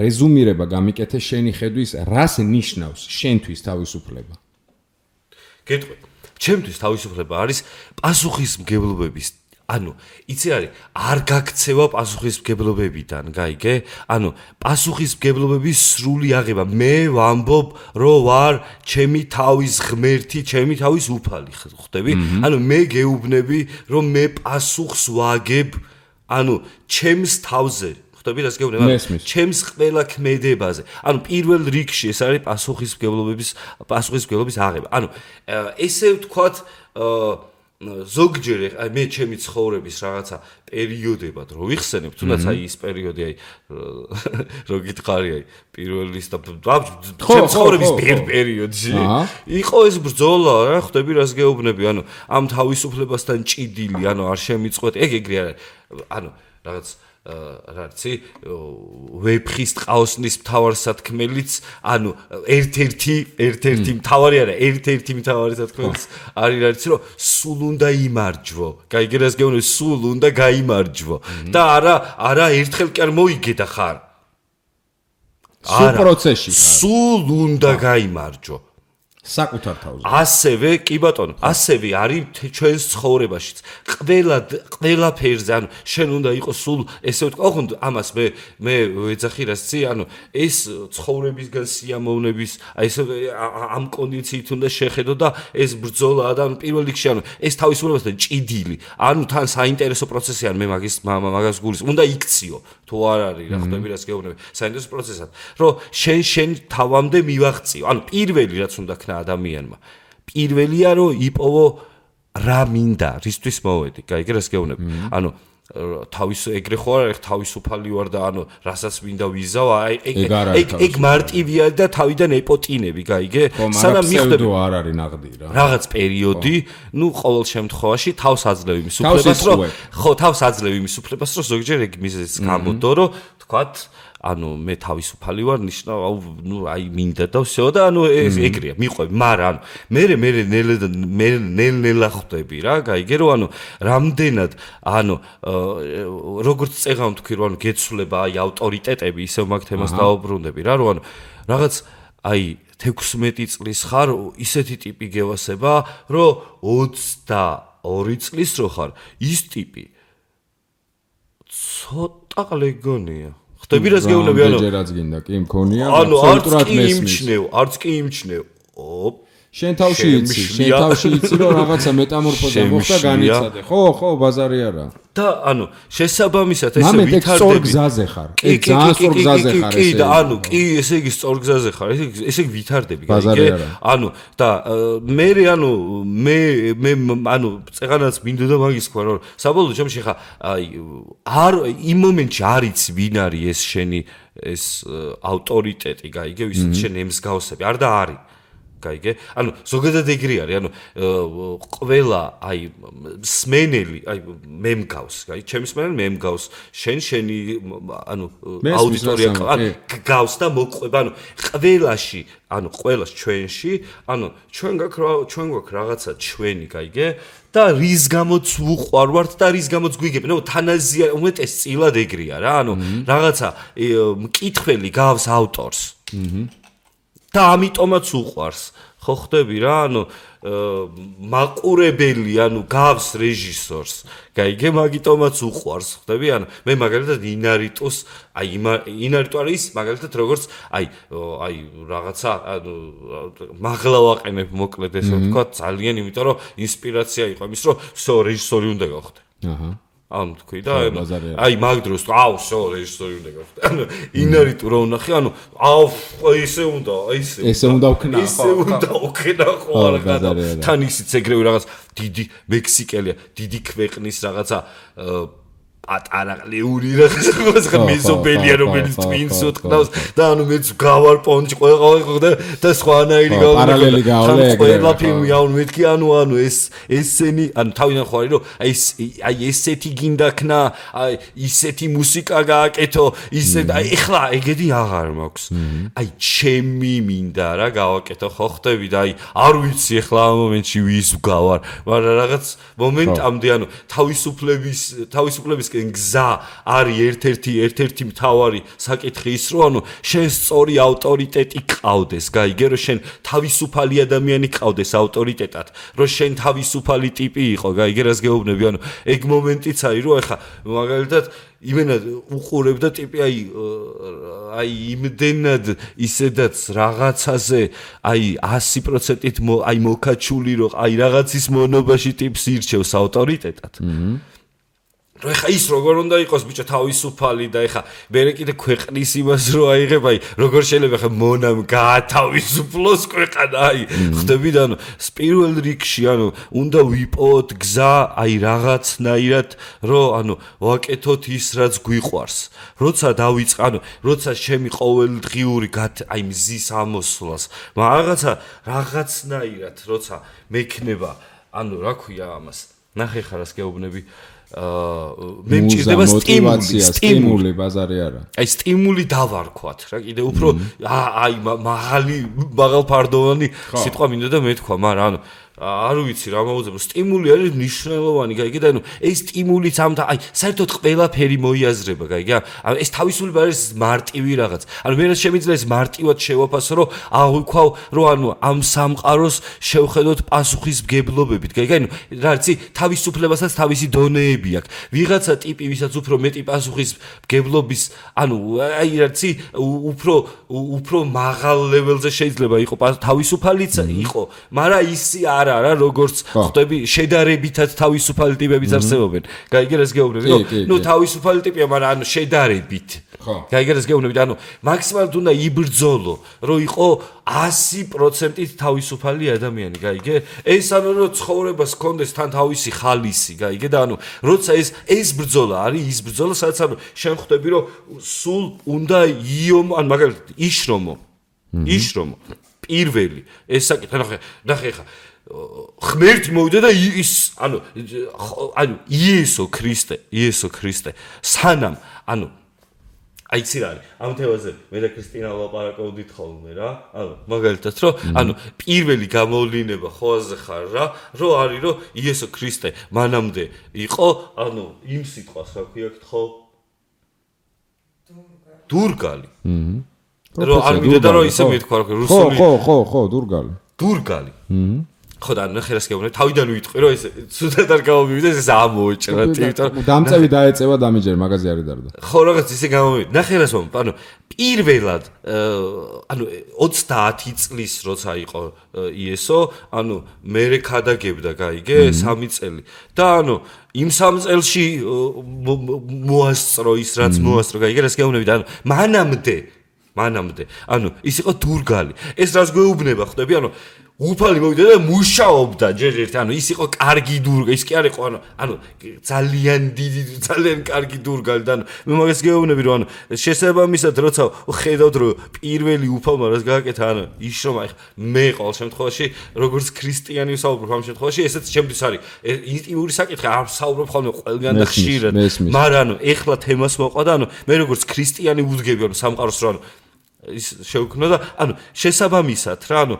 რეზუმირება გამიკეთე შენი ხედვის რას ნიშნავს შენთვის თავისუფლება გეტყვი ჩემთვის თავისუფლება არის პასუხისმგებლობების იცი არის არ გაქცევა პასუხისმგებლობებიდან გაიგე პასუხისმგებლობების სრული აღება მე ვამბობ რომ ვარ ჩემი თავის ღმერთი ჩემი თავის უფალი ხვდები მე გეუბნები რომ მე პასუხს ვაგებ ჩემს თავზე ხვდები რას გეუბნები ჩემს ყველა ქმედებაზე პირველ რიგში ეს არის პასუხისმგებლობის აღება ესე ვთქვათ ზოგჯერ მე ჩემი ცხოვრების რაღაცა პერიოდებად რო ვიხსენებ თუნდაც ის პერიოდი რო გითხარი პირველის და ჩემი ცხოვრების პერიოდში იყო ეს ბრძოლა რა ხვდები რას გეუბნები ამ თავისუფლებასთან ჭიდილი არ შემიწყვეტ ეგრე არის რაღაც რაცი ვეფხის ტყაოსნის მთავარსათქმელიც ერთ-ერთი მთავარი არა ერთ-ერთი მთავარი სათქმელიც არის რაც რომ სულ უნდა იმარჯვო გაიგე რას გეუბნები სულ უნდა გაიმარჯვო და არა ერთხელ კი არ მოიგე და ხარ სულ პროცესში სულ უნდა გაიმარჯვო საკუთარ თავზე ასევე კი ბატონო ასევე არის ჩვენს ცხოვრებაშიც ყველა ფერზე შენ უნდა იყოს სულ ესე ვთქვა ოღონდ ამას მე ვეძახი რასცი ეს ცხოვრებისგან სიამოვნების ესე ამ კონდიციით უნდა შეხედო და ეს ბრძოლა და პირველ რიგში ეს თავისუფლებასთან ჭიდილი თან საინტერესო პროცესი მე მაგას გულის უნდა იქციო თუ არ არის რა ხვდები რას გეუბნები საინტერესო პროცესად რომ შენ თავამდე მივაღწიო პირველი რაც უნდა ქნა ადამიანმა პირველია რომ იპოვო რა მინდა რისთვის მოვედი გაიგე რას გეუბნები თავის ეგრე ხო არ თავისუფალი ვარ და რასაც მინდა ვიზავ ეგ მარტივია და თავიდან ეპოტინები გაიგე სანამ მიხვდები არ არის ნაღდი რა რაღაც პერიოდი ყოველ შემთხვევაში თავს აძლევ იმის უფლებას რომ ხო თავს აძლევ იმის უფლებას რომ ზოგჯერ ეგ მიზეზს გამოდო რომ თქვათ მე თავისუფალი ვარ ნიშნავ მინდა და всё და ეს ეგრეა მიყვები მაგრამ მე ნელ-ნელა ხვდები რა გაიგე რომ რამდენად როგორც წეღავ თქვი რომ გეცვლება ავტორიტეტები ისევ მაგ თემას დაუბრუნდები რა რომ რაღაც 16 წლის ხარ ისეთი ტიპი გევასება რომ 22 წლის რო ხარ ის ტიპი ცოტა ყლეგონია ხტები რას გეუბნები ჯერაც გინდა კი მქონია ანუ არც კი იმჩნევ შენ თავში იცი რომ რაღაცა მეტამორფოზა მოხდა განიცადე ხო ბაზარი არა და ანუ შესაბამისად ესე ვითარდები სწორ გზაზე ხარ ძალიან სწორ გზაზე ხარ კი და ანუ კი ესე იგი სწორ გზაზე ხარ ესე იგი ვითარდები გაიგე ანუ და მე ანუ წეღანაც მინდოდა მაგის თქვა რომ საბოლოო ჯამში ხა არ იმ მომენტში არ იცი ვინ არის ეს შენი ეს ავტორიტეტი გაიგე ვისაც შენ ემსგავსები არ და არის გაიგე? ანუ ზოგადად ეგრე არის, ანუ ყველა აი სმენელი, აი მე მგავს, გაიგე? ჩემი სმენელი მე მგავს, შენი ანუ აუდიტორია გავს და მოყვება, ანუ ყველაში, ანუ ყველას ჩვენში, ანუ ჩვენ გვაქვს რაღაცა ჩვენი, გაიგე? და რის გამოც ვუყვარვართ და რის გამოც გვიგებ, ნუ თანაზია უმეტესწილად ეგრეა რა, ანუ რაღაცა მკითხველი გავს ავტორს. და ამიტომაც უყვარს ხო ხდები რა ანუ მაყურებელი ანუ გავს რეჟისორს გაიგე მაგიტომაც უყვარს ხდები ანუ მე მაგალითად ინარიტოს აი ინარიტო არის მაგალითად როგორც აი რაღაცა ანუ მაღლა ვაყენებ მოკლედ ესე ვთქვა ძალიან იმიტომ რომ ინსპირაცია იყო იმის რომ всё რეჟისორი უნდა გავხდე აჰა ანუ თქვი და აი მაგ დროს всё რეჟისორი უნდა გავხდე ანუ ინარიტო რა ვნახე ანუ ესე უნდა ვქნა ხო არა თან ისიც ეგრევე რაღაც დიდი მექსიკელია დიდი ქვეყნის რაღაცა პატარა ყლიური რაღაცა მეზობელია რომელიც twins უთქნავს და ანუ მეც გავარ პონჩი ყველა და სხვანაირი პარალელი გავლე ყველა ფილმი ანუ მეთქი ანუ ესენი ანუ თავიდან ხო არის რომ აი ესეთი გინდა ქნა აი ისეთი მუსიკა გააკეთო ისე აი ეხლა ეგეთი აღარ მაქვს აი ჩემი მინდა რა გავაკეთო ხო ხდები და აი არ ვიცი ეხლა ამ მომენტში ვის გავარ მაგრამ რაღაც მომენტამდე ანუ თავისუფლების გზა არის ერთ-ერთი მთავარი საკითხი ის რომ ანუ შენ სწორი ავტორიტეტი ყავდეს გაიგე რომ შენ თავისუფალი ადამიანი ყავდეს ავტორიტეტად რომ შენ თავისუფალი ტიპი იყო გაიგე რას გეუბნები ანუ ეგ მომენტიც არის რომ ეხა მაგალითად იმენად უყურებ და ტიპი აი იმდენად ისედაც რაღაცაზე აი 100%-ით აი მოკაჩული რომ აი რაღაცის მონობაში ტიპს ირჩევს ავტორიტეტად რო ეხა ის როგორ უნდა იყოს ბიჭო თავისუფალი და ეხა მერე კიდე ქვეყნის იმას რო აიღებ აი როგორ შეიძლება ეხა მონამ გაათავისუფლოს ქვეყანა აი ხდები და ანუ პირველ რიგში ანუ უნდა ვიპოვოთ გზა აი რაღაცნაირად რო ანუ ვაკეთოთ ის რაც გვიყვარს როცა დავიწყე ანუ როცა ჩემი ყოველდღიური აი მზის ამოსვლას რაღაცნაირად როცა მექნება ანუ რა ქვია ამას ნახე ხარ რას გეუბნები მე მჭირდება სტიმული ბაზარი არა აი სტიმული დავარქვათ რა კიდე უფრო აი მაღალფარდოვანი სიტყვა მინდა და მეთქვა მაგრამ ანუ არ ვიცი რა მოუძებო სტიმული არის მნიშვნელოვანი გაიგე და ანუ ეს სტიმულიც ამთა აი საერთოდ ყველაფერი მოიაზრება გაიგე ანუ ეს თავისუფლება არის მარტივი რაღაც ანუ მე რაც შემიძლია ეს მარტივად შევაფასო რომ აღვიქვავ რომ ანუ ამ სამყაროს შევხედოთ პასუხისმგებლობებით გაიგე ანუ რა იცი თავისუფლებასაც თავისი დონეები აქვს ვიღაცა ტიპი ვისაც უფრო მეტი პასუხისმგებლობის ანუ აი რა იცი უფრო მაღალ ლეველზე შეიძლება იყოს თავისუფალიც იყო მაგრამ ისი არა როგორც ხდები შედარებითად თავისუფალი ტიპებიც არსებობენ. გაიგე რას გეუბნები? ნუ თავისუფალი ტიპია, მაგრამ ანუ შედარებით. გაიგე რას გეუბნები? ანუ მაქსიმალურად უნდა იბრძოლო, რომ იყო 100%-ით თავისუფალი ადამიანი, გაიგე? ეს ანუ რომ ცხოვრებას ჰქონდეს თან თავისი ხალისი, გაიგე? და ანუ როცა ეს ბრძოლა არის, ის ბრძოლა, სადაც ანუ შენ ხვდები, რომ სულ უნდა იომო, ან მაგალითად იშრომო. პირველი ეს საკითხი ნახე ხა ღმერთი მოვიდა და ის ანუ იესო ქრისტე სანამ ანუ აი ცი რა არის ამ თემაზე მე და ქრისტინა ვლაპარაკობდით ხოლმე რა ანუ მაგალითად რომ ანუ პირველი გამოვლინება ხოაზე ხარ რა რომ არის რომ იესო ქრისტე მანამდე იყო ანუ იმ სიტყვას რა ქვია ხო დურგალი რომ არ მინდა რომ ისე მეთქვა რუსული ხო დურგალი ხო და ნახე რას გეუბნები თავიდან ვიტყვი რომ ეს ცუდად არ გამომივიდეს ეს ამოეჭრა იმიტომ დამწევი დაეწევა დამიჯერ მაგაზე არ დარდა ხო რაღაც ისე გამომივიდა ნახე რას ვამბობ ანუ პირველად ანუ 30 წლის როცა იყო იესო ანუ მე ქადაგებდა გაიგე 3 წელი და ანუ იმ 3 წელში მოასწრო ის რაც მოასწრო გაიგე რას გეუბნები და ანუ მანამდე ანუ ის იყო დურგალი ეს რას გვეუბნება ხვდები ანუ უფალი მოვიდა და მუშაობდა ჯერ ერთ ანუ ის იყო კარგი დურგალი ის კი არ იყო ანუ ძალიან დიდი ძალიან კარგი დურგალი და მე მაგას გეუბნები რომ ანუ შესაბამისად როცა ხედავთ რომ პირველი უფალმა რას გააკეთა ანუ ის რომ აი მე ყოველ შემთხვევაში როგორც ქრისტიანი ვსაუბრობ ამ შემთხვევაში ესეც ჩემთვის არის ინტიმური საკითხი არ ვსაუბრობ ხოლმე ყველგან და ხშირად მაგრამ ანუ ეხლა თემას მოყვა და ანუ მე როგორც ქრისტიანი ვუდგები ანუ სამყაროს რომ ანუ ის შეუქმნა და ანუ შესაბამისად რა ანუ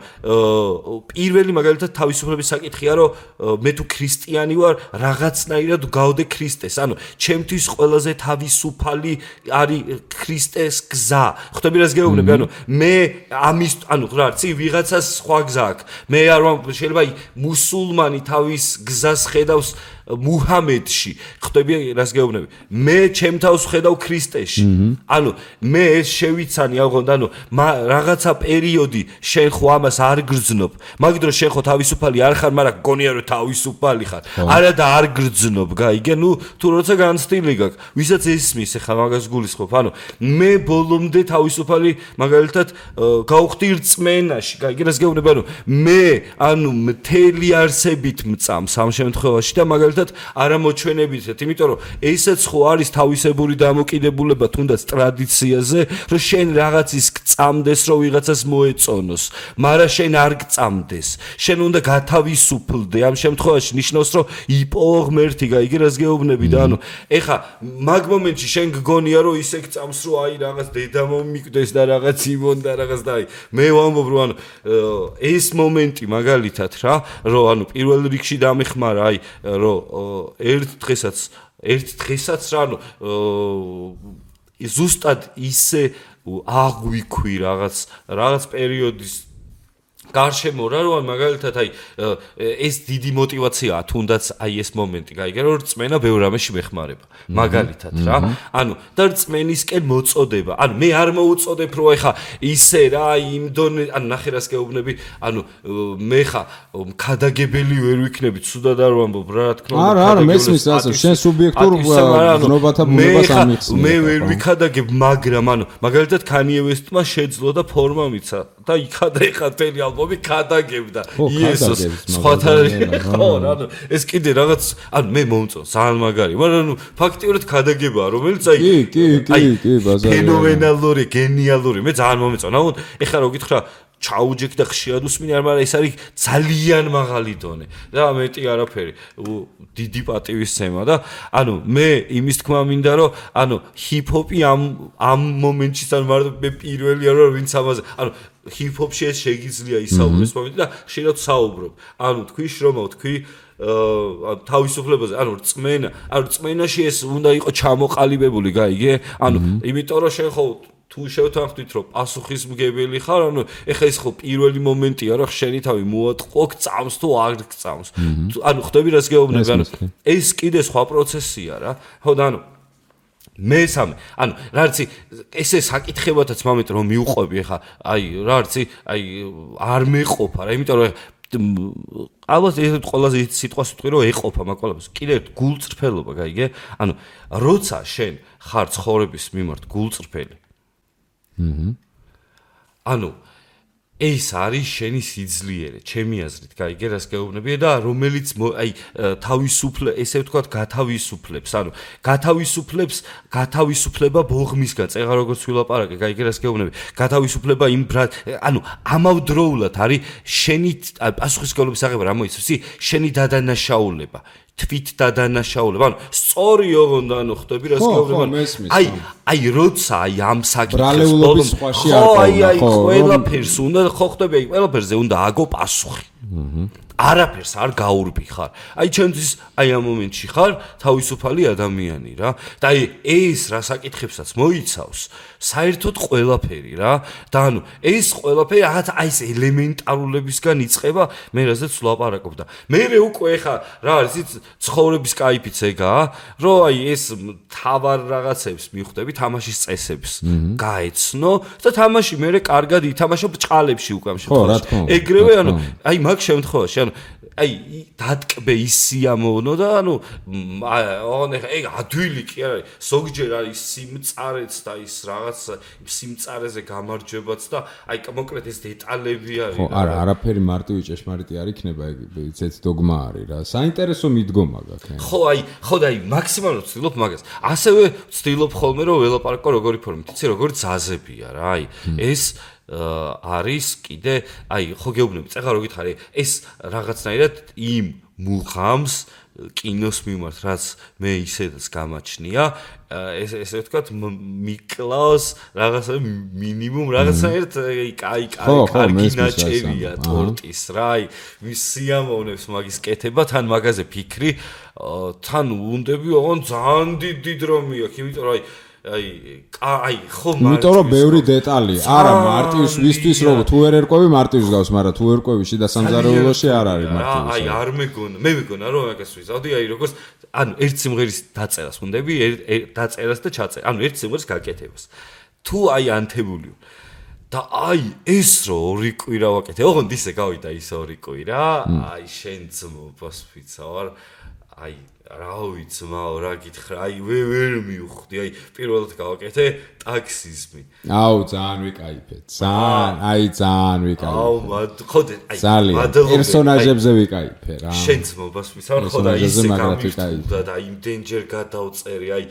პირველი მაგალითად თავისუფლების საკითხია რომ მე თუ ქრისტიანი ვარ რაღაცნაირად გავდე ქრისტეს ანუ ჩემთვის ყველაზე თავისუფალი არის ქრისტეს გზა ხვდები რას გეუბნები ანუ მე ამის ანუ რა არც ვიღაცას სხვა გზა აქვს მე არ შეიძლება მუსულმანი თავის გზას ხედავს მუჰამედში ხვდები რას გეუბნები მე ჩემ თავს ვხედავ ქრისტეში ანუ მე ეს შევიცანი აღონდა ანუ რაღაცა პერიოდი შენ ხო ამას არ გრძნობ მაგ დროს შენ ხო თავისუფალი არ ხარ მაგრამ გონია რომ თავისუფალი ხარ არა და არ გრძნობ გაიგე ნუ თუ როცა განცდილი გაქვს ვისაც ესმის ახლა მაგას გულისხმობ ანუ მე ბოლომდე თავისუფალი მაგალითად გავხდი რწმენაში გაიგე რას გეუბნები ანუ მე ანუ მთელი არსებით მწამს ამ შემთხვევაში და მაგალითად არა მოჩვენებითად, იმიტომ რომ ესეც ხო არის თავისებური დამოკიდებულება თუნდაც ტრადიციაზე, რომ შენ რაღაცის გწამდეს, რომ ვიღაცას მოეწონოს, მაგრამ შენ არ გწამდეს. შენ უნდა გათავისუფლდე. ამ შემთხვევაში ნიშნავს, რომ იპოვო ღმერთი, გაიგე რას გეუბნები და ანუ ეხა მაგ მომენტში შენ გგონია, რომ ისე გწამს, რომ აი რაღაც დედა მომიკვდეს და რაღაც იმონ და რაღაც და აი მე ვამბობ, რომ ანუ ეს მომენტი მაგალითად რა, რომ ანუ პირველ რიგში დამეხმარა აი რომ ერთ დღესაც რა ანუ ზუსტად ისე აღვიქვი რაღაც პერიოდის გარშემო რა რომ მაგალითად აი ეს დიდი мотиваციაა თუნდაც აი ეს მომენტი გაიგე რომ რწმენა ბევრ რამეში მეხმარება მაგალითად რა ანუ და რწმენისკენ მოწოდება ანუ მე არ მოუწოდებ რომ ეხა ისე რა იმ დონე ანუ ნახე რას გეუბნები ანუ მე ხა ქადაგებელი ვერ ვიქნები ცუდად არ ვამბობ რა თქმა უნდა არა მესმის ასე შენ სუბიექტურ გზნობათა ბუნებას ამიხსნე მე ვერ ვიქადაგებ მაგრამ ანუ მაგალითად Kanye West-მა შეძლო და ფორმა მიცა და იქადა ეხა თელი ალბომი ქადაგებდა იესოს სხვათა ხო ანუ ეს კიდე რაღაც ანუ მე მომწონს ძალიან მაგარი მაგრამ ანუ ფაქტიურად ქადაგებაა რომელიც აი ბაზარი ფენომენალური გენიალური მე ძალიან მომეწონა ანუ ეხლა რო გითხრა ჩაუჯექ და ხშირად უსმინე მაგრამ ეს არის ძალიან მაღალი დონე და მეტი არაფერი დიდი პატივისცემა და ანუ მე იმის თქმა მინდა რომ ანუ ჰიპ-ჰოპი ამ მომენტში სამ მარტო მე პირველია რომ ვინც ამაზე ანუ ჰიპ-ჰოპში ეს შეგიძლია ისაუბროს მომენტი და ხშირად საუბრობ ანუ თქვი შრომა თქვი თავისუფლებაზე ანუ რწმენაში ეს უნდა იყოს ჩამოყალიბებული გაიგე ანუ იმიტომ რომ შენ ხო თუ შევთანხმდით რომ პასუხისმგებელი ხარ ანუ ეხა ეს ხო პირველი მომენტია რომ შენი თავი მოატყო გწამს თუ არ გწამს ანუ ხვდები რას გეუბნები ანუ ეს კიდე სხვა პროცესია რა ხო და ანუ მესამე ანუ რა არცი ესე საკითხებათაც მომენტ რომ მიუყვები ეხა აი რა არცი აი არ მეყოფა რა იმიტომ რომ ალბათ ეს ყველაზე სიტყვას ვიტყვი რომ ეყოფა მაგ ყველაფერს კიდე გულწრფელობა გაიგე ანუ როცა შენ ხარ ცხოვრების მიმართ გულწრფელი ანუ ეს არის შენი სიძლიერე, ჩემი აზრით, გაიგე რას გეუბნები და რომელიც აი ესე ვთქვათ, გათავისუფლებს, ანუ გათავისუფლება ბოღმისგან, წეღა როგორც ვილაპარაკე, გაიგე რას გეუბნები, გათავისუფლება იმ ანუ ამავდროულად არის შენი პასუხისმგებლობის აღება რა მოიცავს, შენი დადანაშაულება. თვით დადანაშაულება. ანუ სწორი ოღონდ ანუ ხვდები რას გეუბნები. აი როცა აი ამ საკითხს ბოლომდე სხვაში არ აი ყველაფერს უნდა ხო ხვდები აი ყველაფერზე უნდა აგო პასუხი. არაფერს არ გაურბი ხარ. აი ჩემთვის აი ამ მომენტში ხარ თავისუფალი ადამიანი რა. და აი ეს რა საკითხებსაც მოიცავს, საერთოდ ყველაფერი რა. და ანუ ეს ყველაფერი რაღაც აი ეს ელემენტარულებისგან იწყება, მე რაზეც ვლაპარაკობ და მე უკვე ხა რა არის იცი ცხოვრების кайფიც ეგაა, რომ აი ეს თავარ რაღაცებს მიხვდები, თამაშის წესებს გაეცნო და თამაში მე კარგად ითამაშო ბჭყალებში უკვე ამ შემთხვევაში. ეგრევე ანუ აი მაგ შემთხვევაში აი დატკბე ის სიამოვნო და ანუ ეგ ადვილი კი არის ზოგჯერ არის სიმწარეც და ის რაღაც სიმწარეზე გამარჯვებაც და აი კონკრეტ ეს დეტალები არის ხო არა არაფერი მარტივი ჭეშმარიტი არ იქნება ეგ ეს დოგმა არის რა საინტერესო მიდგომა გაქვს ხო და აი მაქსიმალურად ვცდილობ მაგას ასევე ვცდილობ ხოლმე რომ ველაპარაკო როგორი ფორმით იცი როგორი ძაზებია რა აი ეს არის კიდე აი ხო გეუბნები წეღა რო გითხარი ეს რაღაცნაირად იმ მუღამს კინოს მიმართ რაც მე ისედაც გამაჩნია ესე ვთქვათ მიკლავს რაღაცა მინიმუმ რაღაცნაირად კარგი ნაჭერია ტორტის რა აი მის სიამოვნებს მაგის კეთება თან მაგაზე ფიქრი თან უნდები ოღონ ძალიან დიდი დრომი აქვს იმიტომ რომ აი ხო იმიტომ რომ ბევრი დეტალია არა მარტივს ვისთვის რომ თუ ვერ ერკვევი მარტივს გავს მაგრამ თუ ერკვევი შიდა სამზარეულოში არ არის მარტივი აი არ მე მეგონა რომ მაგას ვიზავდი აი როგორც ანუ ერთ სიმღერის დაწერას უნდები დაწერას და ჩაწერას ანუ ერთ სიმღერის გაკეთებას თუ აი ანთებული და აი ეს რო ორი კვირა ვაკეთე ოღონდ ისე გავიდა ის ორი კვირა აი შენ ძმობას ვიცავარ აი რა ვიცმაო რა გითხრა აი ვერ მივხვდი აი პირველად გავაკეთე ტაქსიზმი აუ ძალიან ვიკაიფეთ ძალიან ვიკაიფე აუ ხოდე აი პერსონაჟებზე ვიკაიფე რა შენ ძმობას ვიცავარ ხო და ისე გამიხდა და იმდენჯერ გადავწერე აი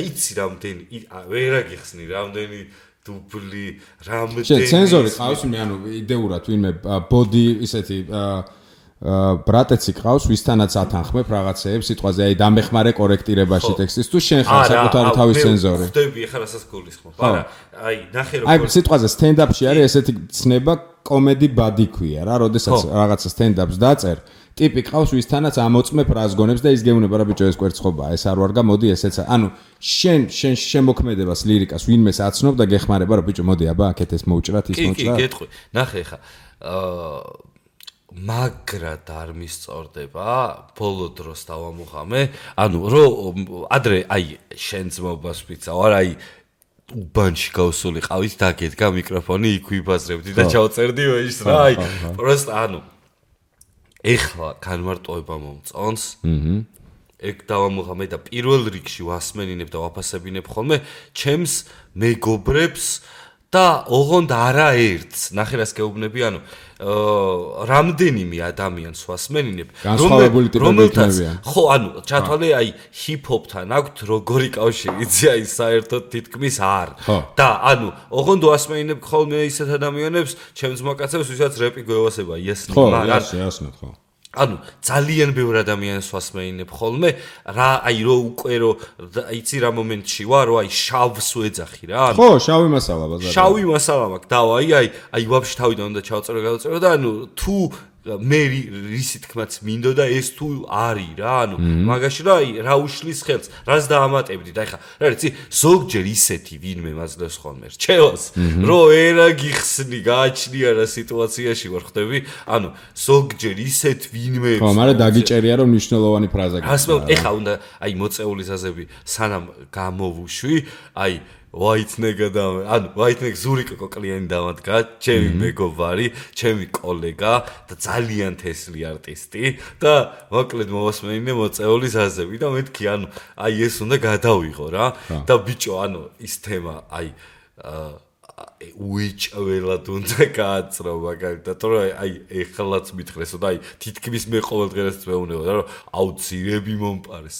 იცი რამდენი ვერა გიხსნი რამდენი დუბლი რამდენი შენ ცენზორი ყავს მე ანუ იდეურად ვინმე ბოდი ისეთი ბრატეცი ყავს ვისთანაც ათანხმებ რაღაცეებს სიტყვაზე აი დამეხმარე კორექტირებაში ტექსტის თუ შენ ხარ საკუთარი თავის ცენზორი ხდები ახლა რასაც გულისხმობ არა აი ნახე რომ აი სიტყვაზე სტენდაპში არის ესეთი ცნება კომედი ბადი ქვია რა როდესაც რაღაცა სტენდაპს დაწერ ტიპი ყავს ვისთანაც ამოწმებ რას გონებს და ის გეუბნება რა ბიჭო ეს კვერცხობაა ეს არ ვარგა მოდი ესეც ანუ შენ შემოქმედებას ლირიკას ვინმეს აცნობ და გეხმარება რა ბიჭო მოდი აბა აქეთ ეს მოუჭრათ ის მოჭრა კი გეტყვი ნახე ხა მაგრად არ მისწორდება ბოლო დროს დავამუღამე ანუ რომ ადრე აი შენ ძმობას ვიცავარ აი უბანში გავსული ყავით დაგედგა მიკროფონი იქ ვიბაზრებდი და ჩავწერდი ის რა აი პროსტ ანუ ეხლა განმარტოება მომწონს ეგ დავამუღამე და პირველ რიგში ვასმენინებ და ვაფასებინებ ხოლმე ჩემს მეგობრებს და ოღონდ არაერთს ნახე რას გეუბნები ანუ რამდენიმე ადამიანს ვასმენინებ რომელთაც ხო ანუ ჩათვალე აი ჰიპ-ჰოპთან აქვთ როგორი კავშირი იცი აი საერთოდ თითქმის არ და ანუ ოღონდ ვასმენინებ ხოლმე ისეთ ადამიანებს ჩემს მოკაცებს ვისაც რეპი გვევასება იესნი მაგრამ ხო ანუ ძალიან ბევრ ადამიანს ვასმენინებ ხოლმე რა აი რო უკვე რო იცი რა მომენტში ვარ რო აი შავს ვეძახი რა ხო შავი მასალა ბაზარი შავი მასალა მაქვს და აი ვაფშე თავიდან უნდა ჩავწერო გადავწერო და ანუ თუ მე რისი თქმაც მინდოდა ეს თუ არის რა ანუ მაგაში რა აი რა უშლის ხელს რას დაამატებდი და ეხა რა იცი ზოგჯერ ისეთი ვინმე მაძლევს ხოლმე რჩევას რომ ერა გიხსნი გააჩნია რა სიტუაციაში ვარ ხდები ანუ ზოგჯერ ისეთ ვინმე ხო მაგრამ დაგიჭერია რომ მნიშვნელოვანი ფრაზა გასმევ ეხა უნდა აი მოწეული ზაზები სანამ გამოვუშვი აი ვაითნეგა და ანუ ვაითნეგ ზურიკო კლიანი დამადგა ჩემი მეგობარი ჩემი კოლეგა და ძალიან თესლი არტისტი და მოკლედ მოვასმენინე მოწეული ზაზები და მეთქი ანუ აი ეს უნდა გადავიღო რა და ბიჭო ანუ ის თემა აი უიჭველად უნდა გააცრო მაგალითად რომ აი ეხლაც მითხრესო და აი თითქმის მე ყოველდღიურად მეუბნება რომ აუცილებლად მომპარეს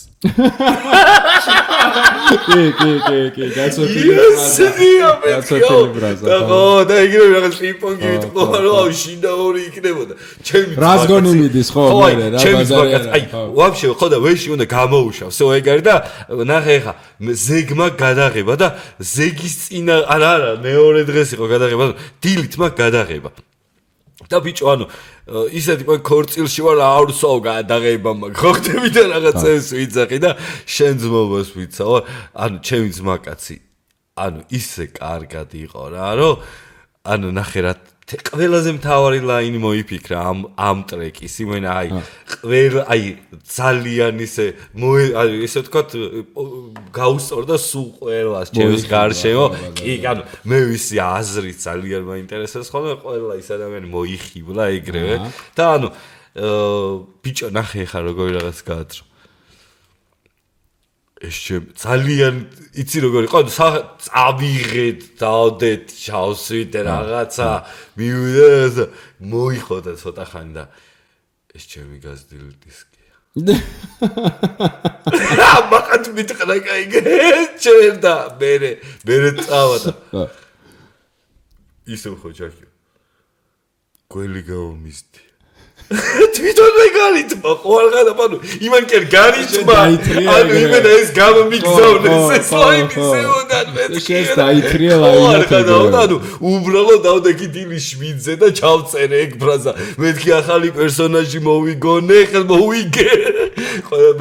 კი გასოფილი ბრაზა და და იგივე რაღაც პინგ-პონგი ვიტყვა რომ აუ შინდა ორი იქნებოდა ჩემი რას გონი მიდის ხო მე რა ბაზარი აი ვაფშე ხო და ვეში უნდა გამოუშავ всё ეგ არის და ნახე ხა ზეგმა გადაღება და ზეგის წინა არა მეორე დღეს იყო გადაღება დილით მაგ გადაღება და ბიჭო, ანუ ისეთი ქორწილში ვარ, არ ვსვავ გადაღება მაგ. ხო ხდები და რაღაცებს ვიცახი და შენ ძმობას ვიცავ. ანუ ჩემი ძმაკაცი, ანუ ისე კარგად იყო რა, რომ ანუ ნახე რა ყველაზე მთავარი ლაინი მოიფიქრა ამ ტრეკის. იმენა აი ძალიან ისე ესე ვთქვათ გაუსწორდა სულ ყველას ჩემს გარშემო. კი, ანუ მე ვიცი აზრი ძალიან მაინტერესებს ხოლმე ყველა ის ადამიანი მოიხიბლა ეგრევე და ანუ ბიჭო ნახე ხა როგორი რაღაც გაათრო. ეს ძალიან იცი როგორი იყო წავიღეთ დავდეთ ჩავსვით რაღაცა მივიდა მოიხოდა ცოტა ხანი და ეს ჩემი გაზრდილი დისკია მაგათ მითხრა კაიგე ჩერდა მე წავა და ისო ხო ჯაკი გველი გამომისდი თვითონ მეგალითმა ყოველღანა ანუ იმან კი არ განიჭმა ანუ იმენა ეს გამომიგზავნეს ეს ლაინზე უნდა მე შეს დაითრია ლაინზე ანუ უბრალოდ დავდექი დილის 7-ზე და ჩავწერე ეგ ფრაზა მეთქი ახალი პერსონაჟი მოვიგონე ხელ მოვიგე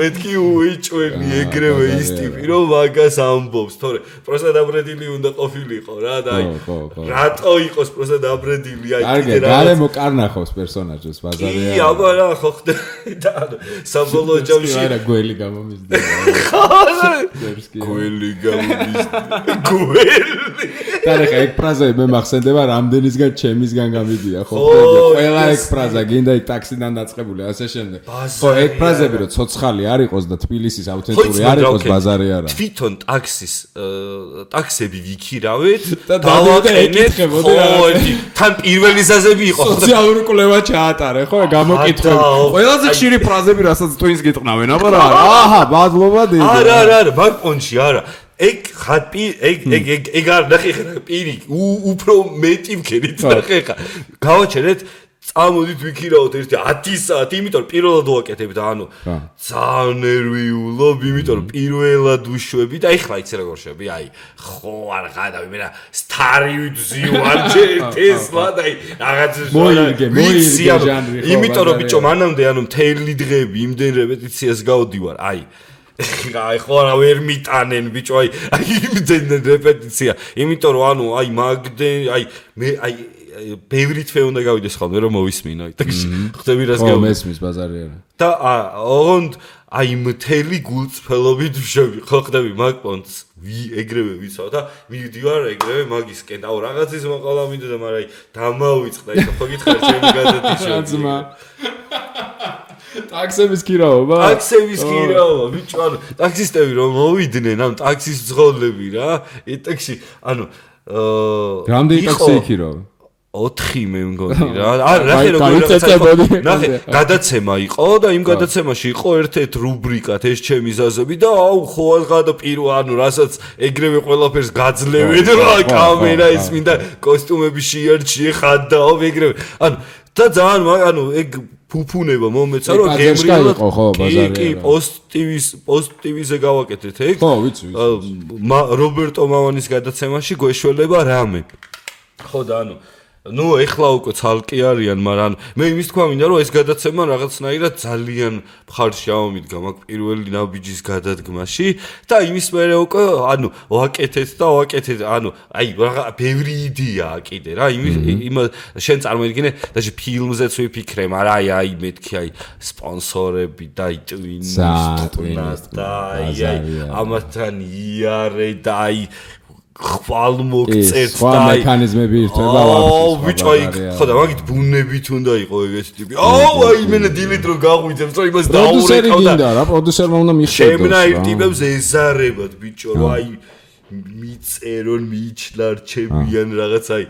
მეთქი უიჭვენი ეგრევე ის ტიპი რომ მაგას ამბობს თორე პროსტა დაბრედილი უნდა ყოფილიყო რა და აი რატო იყოს პროსტა დაბრედილი აი კიდე რა გარემო კარნახობს პერსონაჟს ბაზარი ი აბა რა ხო ხდება და საბოლოო ჯამში არა გველი გამომიზდა გველი გამომიზდა გველი და ხა ეგ ფრაზა მე მახსენდება რამდენისგან ჩემისგან გამიდია ხო ყველა ეგ ფრაზა გინდა იქ ტაქსიდან დაწყებული ასე შემდეგ ხო ეგ ფრაზები რომ ცოცხალი არ იყოს და თბილისის ავთენტური არ იყოს ბაზარი არა თვითონ ტაქსები ვიქირავეთ და დავაკეთეთ ხო თან პირველი ზაზები იყო სოციალური კვლევა ჩაატარე ხო გამოკითხები ყველაზე ხშირი ფრაზები რასაც twins გეტყნავენ აბა რა აჰა ბადლობა დიდი არა მაგ პონჩი არა ეგ ხატი ეგ არ ნახე ხა პირი უფრო მეტი მქერით ნახე ხა გავაჩერეთ წამოდით ვიქირავთ ერთი 10 საათი იმიტომ რომ პირველად ვაკეთებ და ანუ ძალიან ნერვიულობ იმიტომ რომ პირველად უშვები და ეხლა იცი როგორ შვები აი ხო არ გადავი მე რა სტარი ვიძივარ ტესლა და აი რაღაც მოიგე ჟანრი ხო იმიტომ რომ ბიჭო მანამდე ანუ მთელი დღეები იმდენ რეპეტიციას გავდივარ აი ხო რა ვერ მიტანენ ბიჭო აი იმდენ რეპეტიცია იმიტომ რომ ანუ აი მაგდენ აი მე აი ბევრი თვე უნდა გავიდეს ხოლმე რომ მოვისმინო ხდები რას გავ მესმის ბაზარი არა და ოღონდ აი მთელი გულწრფელობით ვშევი ხო ხდები მაგ პონტს ეგრევე ვიცავ და მივდივარ ეგრევე მაგისკენ აუ რაღაცის მოყოლა მინდოდა მაგრამ აი დამავიწყდა ის ხო გითხარ ჩემი გადადიშო ტაქსების ქირაობა ბიჭო ანუ ტაქსისტები რომ მოვიდნენ ანუ ტაქსის ძღოლები რა ეტექსი ანუ რამდენი ტაქსი იქირავა 4 მე მგონი რა ნახე როგორ ნახე გადაცემა იყო და იმ გადაცემაში იყო ერთ-ერთ რუბრიკად ეს ჩემი ზაზები და აუ ხო აღადა პირო ანუ რასაც ეგრევე ყველაფერს გაძლევენ რა კამერა ის მინდა კოსტუმები შეარჩიე ხადაო ეგრევე ანუ და ძალიან ანუ ეგ ფუფუნება მომეცა რომ გემრიელად ხო ბაზარი კი პოსტივიზე გავაკეთეთ ეგ ხო ვიცი რობერტო მამანის გადაცემაში გვეშველება რამე ხო და ანუ ნუ ეხლა უკვე ცალკე არიან, მაგრამ მე იმის თქვა მინდა რომ ეს გადაცემა რაღაცნაირად ძალიან მხარში ამომიდგა მაგ პირველი ნაბიჯის გადადგმაში და იმის მერე უკვე ანუ ვაკეთეთ ანუ აი ბევრი იდეაა კიდე რა იმ შენ წარმოიდგინე და ფილმზეც ვიფიქრე, მაგრამ აი მეთქი აი სპონსორები და twins და აი ამათთან იარე და აი ხვალ მოგწერთ და აი მექანიზმები ერთება აუ ბიჭო აი ხო და მაგით ბუნებით უნდა იყო ეგეთი ტიპი აუ აი მენე დილით რო გაღვიძებს რომ იმას დაურეკავ და რა პროდიუსერმა უნდა მიხვდოს შემნაირ ტიპებს ეზარებად ბიჭო რომ აი მიწერონ მიჩლარჩებიან რაღაც აი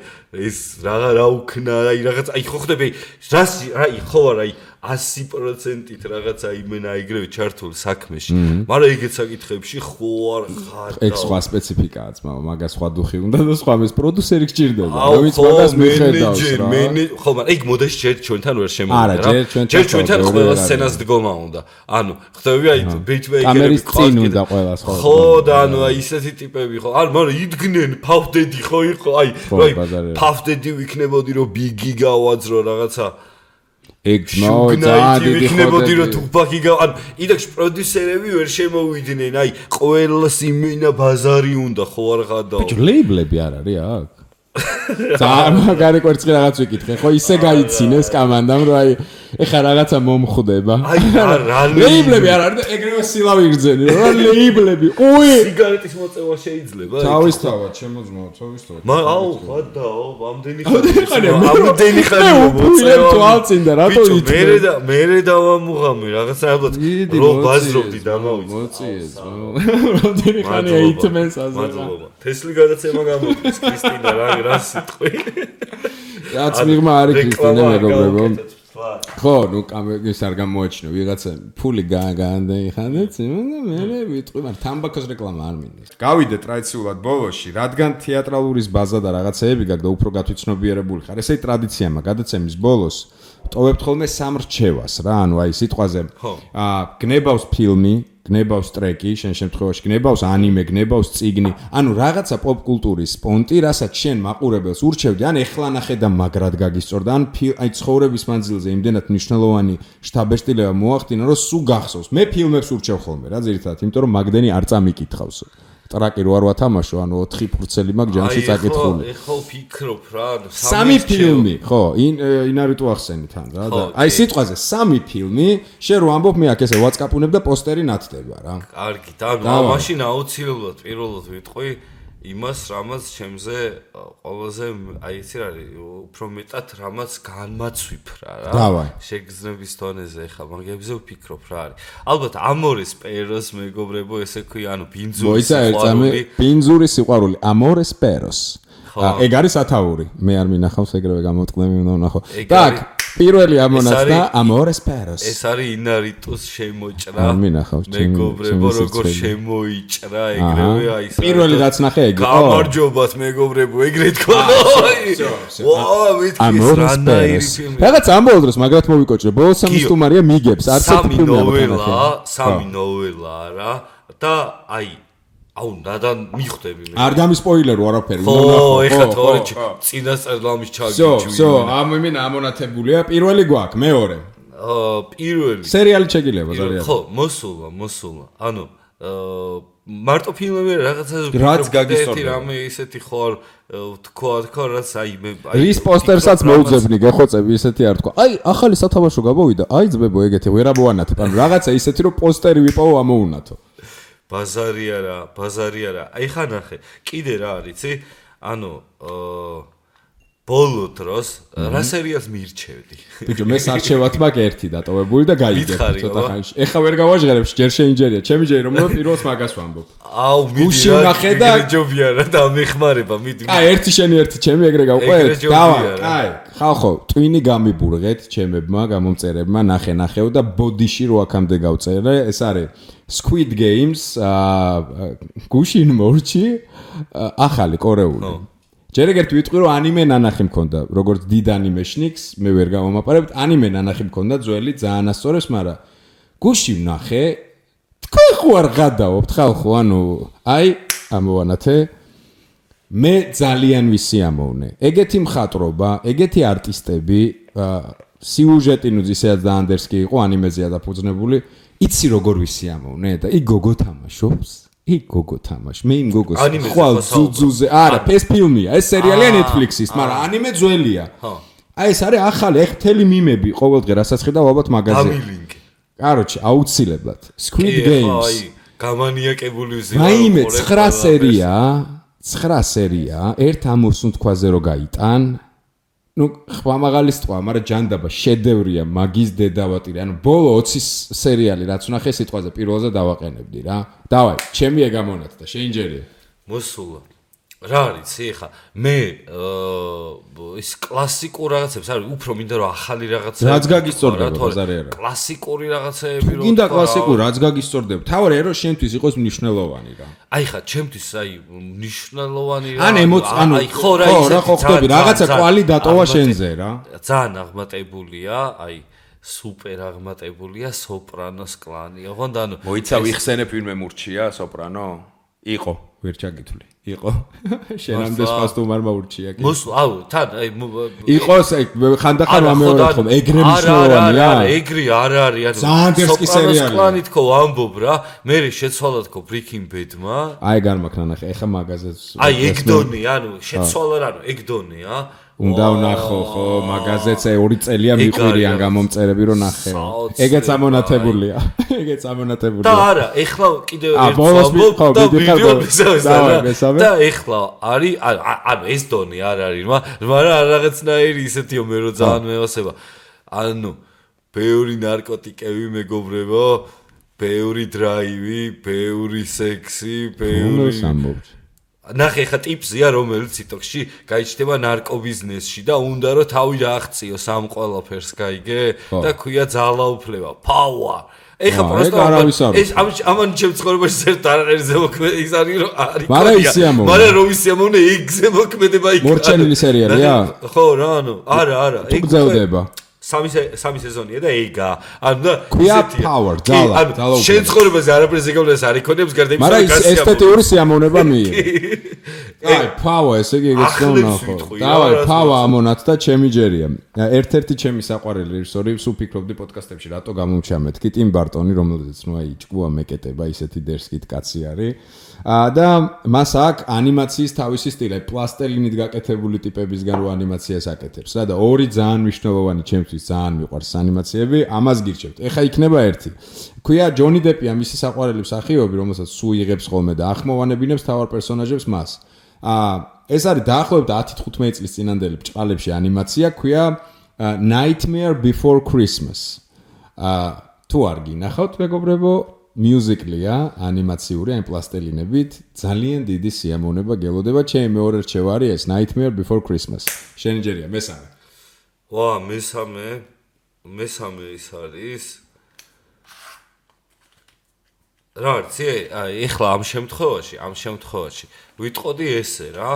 ეს რა უქნა აი რაღაც აი ხო ხდები რას აი ხო არა 100%-ით რაღაცა იმენა იგრევე ჩართული საქმეში. მაგრამ ეგეთ საკითხებში ხო არ ხარ. ეგ სხვა სპეციფიკაა ძმაო, მაგას სხვა დუხი უნდა და სხვა ეს პროდიუსერი გჭირდება. რომელიც მაგას მიხედავს რა. ხო, მაგრამ ეგ მოდაში ჯერ ჩვენთან ვერ შემოვიდა რა. ჯერ ჩვენთან ყველა სცენას დგომა უნდა. ანუ ხდები აი ბეიჩბეიკერი კამერის წინ უნდა ყველა სხვა. ხო და ანუ აი ისეთი ტიპები ხო. ანუ მაგრამ იდგნენ ფავდედი ხო იყო აი ფავდედი ვიქნებოდი რომ ბიგი გავაძრო რაღაცა ეგ ძმაო ძალიან დიდი ვიქნებოდი რომ თუფაკი ანუ იდექში პროდიუსერები ვერ შემოვიდნენ აი ყველას იმენა ბაზარი უნდა ხო არ ხადაო ბიჭო ლეიბლები არ არის აქ ძალიან მაგარი კვერცხი რაღაც ვიკითხე ხო ისე გაიცინეს კამანდამ რომ აი ეხა რაღაცა მომხვდება აი რა ლეიბლები არ არის და ეგრევე სილავი იგრძენი რა ლეიბლები უი სიგარეტის მოწევა შეიძლება თავისთავად შემოძმაო თავისთავად მაგრამ აუ ხადაო ამდენი ხანი მოწევა თვალწინდა რატო იტყვი მე დავამუღამე რაღაცა ალბათ რო ბაზრობდი დამავიწე მოწიეს რამდენი ხანია იტმენს აზერა თესლი გადაცემა გამოდის კრისტინა რა სიტყვი რაც მიღმა არის კრისტინა მეგობრებო ხო, ნუ კამერას არ გამოაჩინო, ვიღაცა ფული გაანდეიხანდეთ, და მე ვიტყვი, მაგრამ თამბაქოს რეკლამა არ მინდა. გავიდე ტრადიციულად ბოლოში, რადგან თეატრალურის ბაზა და რაღაცეები გაქვს და უფრო გათვითცნობიერებული ხარ. ესე ტრადიციაა, გადაცემის ბოლოს ტოვებთ ხოლმე სამრჩევას რა, ანუ აი სიტყვაზე გნებავს ფილმი, გნებავს ტრეკი, შენ შემთხვევაში გნებავს ანიმე, გნებავს წიგნი, ანუ რაღაცა პოპ კულტურის პონტი, რასაც შენ მაყურებელს ურჩევდი, ან ეხლა ნახე და მაგრად გაგისწორდა, ან აი ცხოვრების მანძილზე იმდენად მნიშვნელოვანი შთაბეჭდილება მოახდინა, რომ სულ გახსოვს. მე ფილმებს ურჩევ ხოლმე რა, ძირითადად, იმიტომ რომ მაგდენი არ წამიკითხავს. ტრაკი რო არ ვათამაშო, ანუ 4 ფურცელი მაგ ჯამში წაკითხული. ეხლა ვფიქრობ რა, სამი ფილმი, ხო, ინარიტუ ახსენი თან რა და აი სიტყვაზე სამი ფილმი, შენ რო ამბობ მე აქ ესე WhatsApp-უნებ და პოსტერი ნათდება რა. კარგი, და მაშინ აუცილებლად პირველად ვიტყვი იმას, რამაც ჩემზე ყველაზე აი იცი რა არის, უფრო მეტად რამაც განმაცვიფრა რა. შეგრძნების დონეზე ეხა მაგებზე ვფიქრობ რა არის. ალბათ ამორეს პეროს მეგობრებო, ესე ქვია, ანუ ბინძური სიყვარული. ბინძური სიყვარული, ამორეს პეროს. ეგ არის ათაური. მე არ მინახავს ეგრევე გამოტყნები უნდა ვნახო. так, პირველი ამონაც და ამორეს პეროს. ეს არის ინარიტუს შემოჭრა. არ მინახავს ჩემი მეგობრებო, როგორ შემოიჭრა ეგრევე აი ეს. პირველი რაც ნახე ეგ. გამარჯობათ მეგობრებო, ეგრე თქვა. ვაა, მეთქი რანაირი ფილმი. რაღაც ამბოლ დროს მაგრად მოვიკოჭრე. ბოლოს სამი სტუმარია მიგებს, არც ერთი ფილმი არ ნახე. სამი ნოველა რა და აი აუ და მიხვდები მე. არ გამისპოილერო არაფერი. ხო, ეხლა თორე წინასწარ ლამის ჩაგიჩვი. всё, ამინა ამონათებულია. პირველი გვაქვს, მეორე. პირველი. სერიალი შეგილება ძალიან. ხო, მოსულა. ანუ მარტო ფილმები რაღაცა რაც გაგისწორდა. რამე ისეთი ხარ თქვა რაც აი მე რის პოსტერსაც მოუძებნი გეხოცები ისეთი არ თქვა. აი, ახალი სათამაშო გამოვიდა. აი ძმებო ეგეთი ვერ ამოვანათებ. ანუ რაღაცა ისეთი რომ პოსტერი ვიპოვო ამოუნათო. ბაზარი არა. აი ხა ნახე. კიდე რა არის, იცი? ანუ ბოლო დროს რა სერიალს მირჩევდი. ბიჭო, მე სარჩევად მაქვს ერთი დატოვებული და გაიგებ ცოტა ხანში. ეხა ვერ გავაჟღერებ, ჯერ შეინჯერია. ჩემი ჯერი რომ პირველს მაგას ვამბობ. აუ, მიდი ნახე და ჯობია რა და მეხმარება, მიდი. აი, ერთი შენი, ერთი ჩემი ეგრე გავყვეთ. დავა, აი, ხალხო, ტვინი გამიბურღეთ ჩემებმა, გამომწერებმა, ნახეო და ბოდიში რო აქამდე გავწერე, ეს არის Squid Games, გუშინ მორჩი, ახალი კორეული. ჯერ ეგრეთ ვიტყვი რომ ანიმე ნანახი მქონდა, როგორც დიდ ანიმეშნიკს, მე ვერ გამომაპარებთ, ანიმე ნანახი მქონდა ძველი, ძალიან ასწორებს, მაგრამ გუში ვნახე, თქვენ ხო არ გადაობთ ხალხო, ანუ აი, ამოვანათე, მე ძალიან ვისიამოვნე. ეგეთი მხატვრობა, ეგეთი არტისტები, სიუჟეტი ნუ ისედაც დაანდერსკი იყო, ანიმეზეა დაფუძნებული, იცი როგორ ვისიამოვნე და იქ გოგო თამაშობს. იქ გოგო თამაშ. მე იმ გოგოს ხვალ ძუძუზე. არა, ეს ფილმია, ეს სერიალია Netflix-ის, მაგრამ ანიმე ძველია. აი ეს არის ახალი, ეხ მთელი მიმები ყოველდღე რასაც ხედავ ალბათ მაღაზიაში. გამილინკი. კაროჩი, აუცილებლად. Squid Games. აი, გამანიაკებული ვიზია. მაიმე 9 სერია, ერთ ამოსუნთქვაზე რო გაიტან. ნუ ხმამაღალის თქვა, მაგრამ ჯანდაბა შედევრია, მაგის დედავატირი. ანუ ბოლო 20 სერიალი რაც ვნახე სიტყვაზე პირველზე დავაყენებდი რა. დავაი, ჩემი ეგ ამონათ და შეინჯერია. მოსულა. რა არის ეხა მე ის კლასიკურ რაღაცებს არის უფრო მინდა რომ ახალი რაღაცები რაც გაგისწორდება ბაზარი არა კლასიკური რაღაცები რომ გინდა კლასიკური რაც გაგისწორდება თავი რომ შენთვის იყოს მნიშვნელოვანი რა აი ხა ჩემთვის აი მნიშვნელოვანი რა ანუ ხო რა ხდება რაღაცა კვალი დატოვა შენზე რა ძალიან აღმატებულია აი სუპერ აღმატებულია სოპრანოს კლანი ოღონდ ანუ მოიცა ვიხსენებ ვინმე მურჩია სოპრანო იყო ვერ ჩაგითვლი იყო შენამდე სპასტუმარმა ურჩია კი აუ თან აი იყოს ხანდახან ვამეორებ ხომ ეგრე მნიშვნელოვანია ეგრი არ არის ანუ სოპრანოს კლანი თქო ამბობ რა მე შეცვალა თქო Breaking Bad-მა აი განმაქნა ნახე ეხა მაგაზეც აი ეგ დონია ანუ შეცვალა რა ანუ ეგ დონია უნდა ვნახო ხო მაგაზეც 2 წელია მიყვირიან გამომწერები რომ ნახეო ეგეც ამონათებულია ეგეც ამონათებულია და არა ეხლა კიდევ ერთ ვამბობ და ვიდეო მისავსა და ეხლა არის ანუ ეს დონი არ არის მაგრამ რაღაცნაირი ისეთიო მე რო ძალიან მეოსება ანუ ბევრი ნარკოტიკები მეგობრებო ბევრი დრაივი ბევრი სექსი ბევრი ნახე ხა ტიპზია რომელიც TikTok-ში გაიჩნდება ნარკობიზნესში და უნდა რომ თავი დააღწიოს ამ ყველაფერს გაიგე და ქვია ძალაუფლება power ეხა პროსტო ეს ამან ჩემ ცხოვრებაში ერთ არაერთი ზემოქმედი ის არის რომ არის მაგრამ რომ ის ამოვნე ეგ ზემოქმედება იქ მორჩენილი სერიალია ხო რა ანუ არა ეგ გძელდება სამი სეზონია და ეგა ანუ და ქვია power ძალა შენ ცხოვრებაზე არაფერს ეკავლეს არ იქონებს გარდა იმისა მაგრამ ის ესთეტიური სიამოვნება მიიღო აი power ესე იგი ეგეც ნახო დავай power ამონათ და ჩემი ჯერია ერთ-ერთი ჩემი საყვარელი რეჟისორი სულ ფიქრობდი პოდკასტებში რატო გამოვჩა მეთქი ტიმ ბარტონი რომელზეც ნუ აი ჭკუა მეკეტება ისეთი დერსკით კაცი არის და მას აქვს ანიმაციის თავისი სტილი პლასტელინით გაკეთებული ტიპებისგან რო ანიმაციას აკეთებს და ორი ძალიან მნიშვნელოვანი ჩემთვის ძალიან მიყვარს ანიმაციები ამას გირჩევთ ეხა იქნება ერთი ქვია ჯონი დეპია მისი საყვარელი მსახიობი რომელსაც სულ იღებს ხოლმე და ახმოვანებინებს თავარ პერსონაჟებს მას ეს არის დაახლოებით 10-15 წლის წინანდელი ბჭყალებში ანიმაცია ქვია Nightmare Before Christmas თუ არ გინახავთ მეგობრებო მიუზიკლია ანიმაციური ან პლასტელინებით ძალიან დიდი სიამოვნება გელოდება ჩემი მეორე რჩევა არის ეს Nightmare Before Christmas შენი ჯერია მესამე ვა მესამე ის არის რა არის აი ეხლა ამ შემთხვევაში ვიტყოდი ესე რა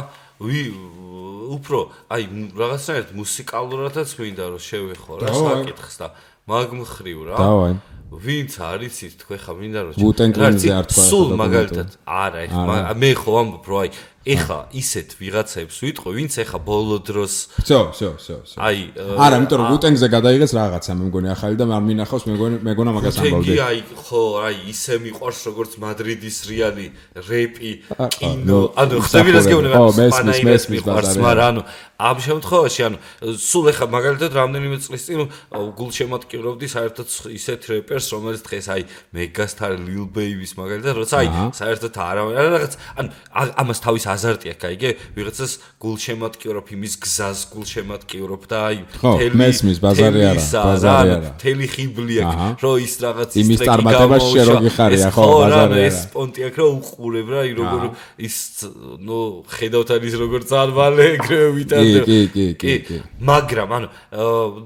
უფრო აი რაღაცნაირად მუსიკალურადაც მინდა რომ შევეხო რა საკითხს და მაგ მხრივ რა დავაი ვინც არიცით თქვენ ხა მინდა რომ ვუტენგლინზე არ თქვა სულ მაგალითად არა ეხლა მე ხო ამბობ რომ აი ეხლა ისეთ ვიღაცებს ვიტყვი ვინც ეხლა ბოლო დროს всё აი არა იმიტომ რომ ვუტენგზე გადაიღეს რაღაცა მე მგონი ახალი და არ მინახავს მეგონა მაგას ამბავდი აი ხო აი ისე მიყვარს როგორც მადრიდის რეალი რეპი კინო ანუ ხდები რას გეუბნება მესმის მიყვარს მაგრამ ანუ ამ შემთხვევაში ანუ სულ ეხლა მაგალითად რამდენიმე წლის წინ გულშემატკივრობდი საერთოდ ისეთ რეპერს რომელიც დღეს აი მეგასტარ ლილ ბეიბის მაგალითად როცა აი საერთოდ არა რაღაც ანუ ამას თავის აზარტი აქვს აიგე ვიღაცას გულშემატკივრობ იმის გზას გულშემატკივრობ და აი მესმის ბაზარი არა თელი ხიბლი აქვს რო ის რაღაც იმის წარმატებას შეროგი ხარია ხო ბაზარი არა ეს პონტი აქვს რომ უყურებ რა აი როგორ ის ნუ ხედავთ არის როგორ წარმალე ეგრევე ვიტანდა კი მაგრამ ანუ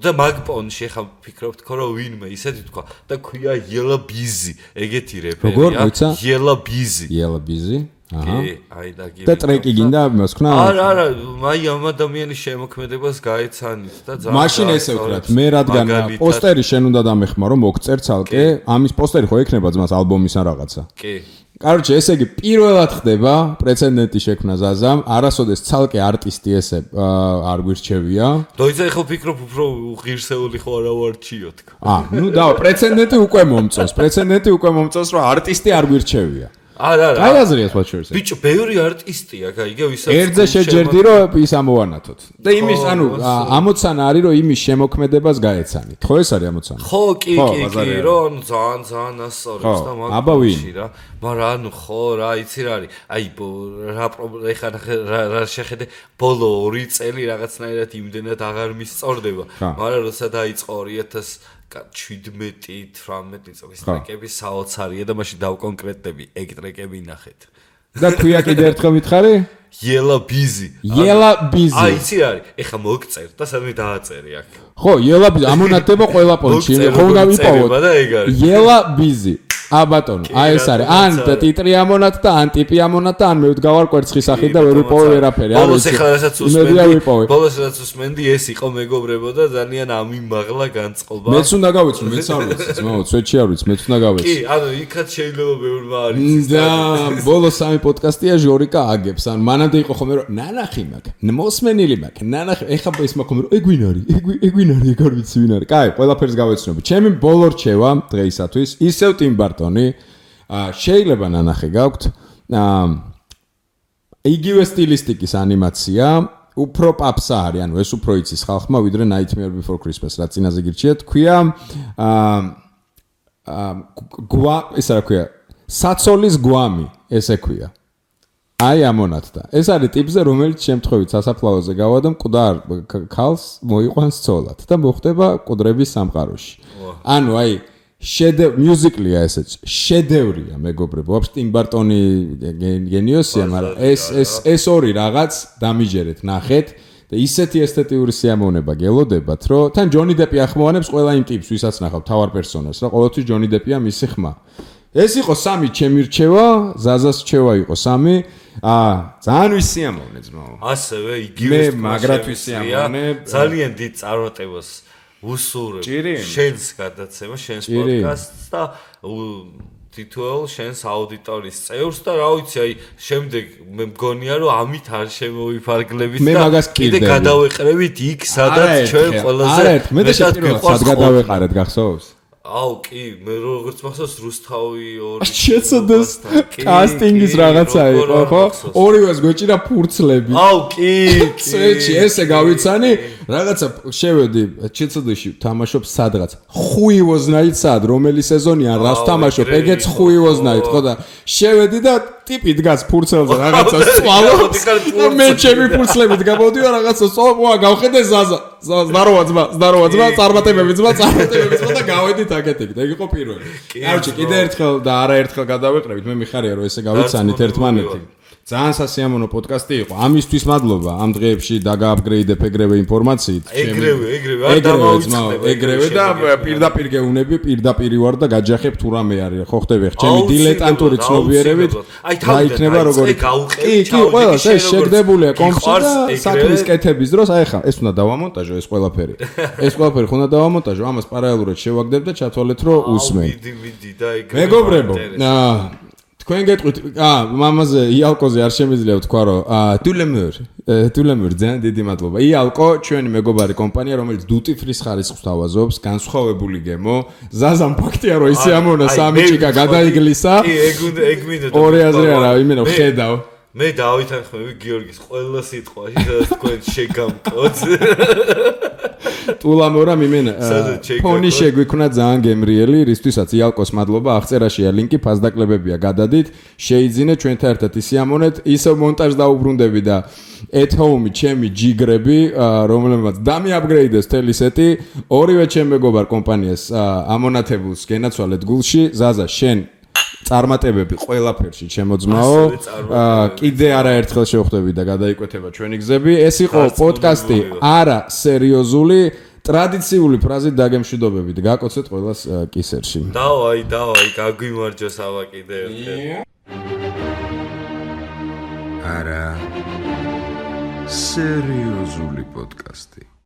და მაგ პონში ხა ფიქრობთ ხო რომ ვინმე ისეთი თქვა და ქვია Yella Busy ეგეთი რეპერია Yella Busy აი და ტრეკი გინდა მოსქნა არა აი ამ ადამიანის შემოქმედებას გაეცანით და ძალიან მაშინ ესე ვქრათ მე რადგან პოსტერი შენ უნდა დამეხმარო მოგწერ ცალკე ამის პოსტერი ხო ექნება ძმას ალბომის ან რაღაცა კი კაროჩე ესე იგი პირველად ხდება პრეცედენტი შექმნა ზაზამ არასოდეს ცალკე არტისტი ესე არ გვირჩევია დოიცა ხო ფიქრობ უფრო ღირსეული ხო არა ვარჩიო თქო ნუ და პრეცედენტი უკვე მომწონს რომ არტისტი არ გვირჩევია არა აი აზრია სხვა შორს ბიჭო ბევრი არტისტია გაიგე ვისაც ერთზე შეჯერდი რომ ის ამოვანათოთ და იმის ანუ ამოცანა არის რომ იმის შემოქმედებას გაეცანით ხო ეს არის ამოცანა ხო კი რომ ძალიან ასწორებს და მაგაში რა მაგრამ ანუ ხო რა იცი რა არის აი რა ეხა რა შეხედე ბოლო 2 წელი რაღაცნაირად იმდენად აღარ მისწორდება მაგრამ როცა დაიწყო 2017-18 წლის ტრეკები საოცარია და მაშინ დავკონკრეტდები ეგ ტრეკები ნახეთ და ქვია კიდე ერთხელ მითხარი? Yela busy. Yela busy. აი, იცი არის. ეხა მოგწერ და სადმე დააწერი აქ. ხო, Yela busy ამონათდება ყველა პონჩი. ხო, უნდა ვიპოვოთ. Yela busy. ბატონო, აი ეს არის. ან ტიტრი ამონათ და ან ტიპი ამონათ და ან მე ვდგავარ კვერცხის სახით და ვერ ვიპოვე ვერაფერი. ბოლოს ეხლა რასაც უსმენდი, ეს იყო მეგობრებო და ძალიან ამიმაღლა განწყობა. მეც უნდა გავიცნო, მეც არ ვიცი, ძმაო, სვეტში არ ვიცი, მეც უნდა გავიცნო. კი, ანუ იქაც შეიძლება ბევრმა არ იცის. და ბოლოს სამი პოდკასტია ჟორიკა აგებს. ან მანამდე იყო ხოლმე რომ ნანახი მაქვს, მოსმენილი მაქვს, ნანახი, ეხა ის მაქვს ხოლმე რომ ეგვინარი, ეგ არ ვიცი ვინ არის. კაი, ყველაფერს გავეცნობი. ჩემი ბოლო რჩევა დღეისათვის ისევ ტიმ ბარტონი. შეიძლება ნანახი გაქვთ. იგივე სტილისტიკის ანიმაცია, უფრო პაპსა არის, ანუ ეს უფრო იცის ხალხმა, ვიდრე Nightmare Before Christmas, რა წინაზე გირჩიეთ, ქვია ეს რა ქვია, საცოლის გვამი, ესე ქვია. აი ამონათდა. ეს არის ტიპზე, რომელიც შემთხვევით სასაფლაოზე გავა და მკვდარ ქალს მოიყვანს ცოლად და მოხდება მკვდრების სამყაროში. ანუ აი მუსიკალია ესეც შედევრია მეგობრებო ვაფშე ტიმ ბარტონი გენიოსია მაგრამ ეს ორი რაღაც დამიჯერეთ ნახეთ და ისეთი ესთეტიური სიამოვნება გელოდებათ რომ თან ჯონი დეპი ახმოვანებს ყველა იმ ტიპს ვისაც ნახავ თავარ პერსონას რა ყოველთვის ჯონი დეპია მისი ხმა ეს იყო სამი ჩემი რჩევა ზაზას რჩევა იყო სამი ძალიან ვისიამოვნე ძმაო ასევე იგივე მაგრად ვისიამოვნე ძალიან დიდ წარმატებას უსურებ შენს გადაცემა შენს პოდკასტს და თითოეულ შენს აუდიტორიის წევრს და რა ვიცი აი შემდეგ მე მგონია რომ ამით არ შემოვიფარგლებით და კიდე გადავეყრებით იქ სადაც ჩვენ ყველაზე მეტად გვიყვარს გადავეყარეთ გახსოვს აუ კი მე როგორც მახსოვს რუსთავი ორი შეცოდეს კასტინგის რაღაცა იყო ხო ორივეს გვეჭირა ფურცლები აუ კი წეჩი ესე გავიცანი რაღაცა შევედი შეცოდეში თამაშობ სადღაც ხუივოზნაით სად რომელი სეზონია რას თამაშობ ეგეც ხუივოზნაით ხო და შევედი და ტიპი დგას ფურცელზე რაღაცა სვალობს და მე ჩემი ფურცლებით გამოდიო რაღაცა სოვა გავხედე ზაზა ზდაროვა ძმა წარმატებები ძმა და გავედით აკეთებით ეგ იყო პირველი კაროჩი კიდე ერთხელ და არაერთხელ გადავეყრებით მე მიხარია რომ ესე გავიცანით ერთმანეთი ძალიან სასიამოვნო პოდკასტი იყო. ამისთვის მადლობა. ამ დღეებში დაგააპგრეიდებ ეგრევე ინფორმაციით. ეგრევე და პირდაპირ გეუნები, პირდაპირ ვარ და გაჯახებ თუ რამე არის. ხო ხდები ხ ჩემი დილეტანტური ცნობიერებით. რა იქნება როგორი? კი, ყველა ეს შეგდებულია კომპში და საქმის კეთების დროს აი ხა ეს უნდა დავამონტაჟო ეს ყველაფერი. ეს ყველაფერი ხონდა დავამონტაჟო. ამას პარალელურად შევაგდებ და ჩათვალეთ რომ უსმენ. მიდი და ეგრევე. მეგობრებო, თქვენ გეტყვით, მამაზე იალკოზე არ შემიძლია ვთქვა, რომ თულემურ ძალიან დიდი მადლობა. იალკო ჩვენი მეგობარი კომპანია, რომელიც duty free-ს ხარისხს თავაზობს, განსხვავებული გემო. ზაზამ ფაქტია, რომ ისე ამონა სამი ჭიკა გადაიგლისა. კი, ეგ მინდა. ორი აზრი არა, იმენა ხედავ. მე დავითანხმები გიორგის ყველა სიტყვაში, სადაც თქვენ შეგამკოთ. ტულამორა მიმენა ფონი შეგვიქნა ძალიან გემრიელი, რისთვისაც იალკოს მადლობა, აღწერაშია ლინკი, ფასდაკლებებია გადადით, შეიძინეთ ჩვენთან ერთად ისიამონეთ, ისევ მონტაჟ დაუბრუნდები და at home ჩემი ჯიგრები, რომლებმაც დამიაპგრეიდეს თელი სეტი, ორივე ჩემ მეგობარ კომპანიას ამონათებულს გენაცვალეთ გულში, ზაზა შენ წარმატებები ყველაფერში ჩემოძმაო. კიდე არაერთხელ შევხვდები და გადაიკვეთება ჩვენი გზები. ეს იყო პოდკასტი არა სერიოზული, ტრადიციული ფრაზით დაგემშვიდობებით. გაკოცეთ ყველას კისერში. დავაი, გაგვიმარჯოს ავა კიდე ერთხელ. არა სერიოზული პოდკასტი.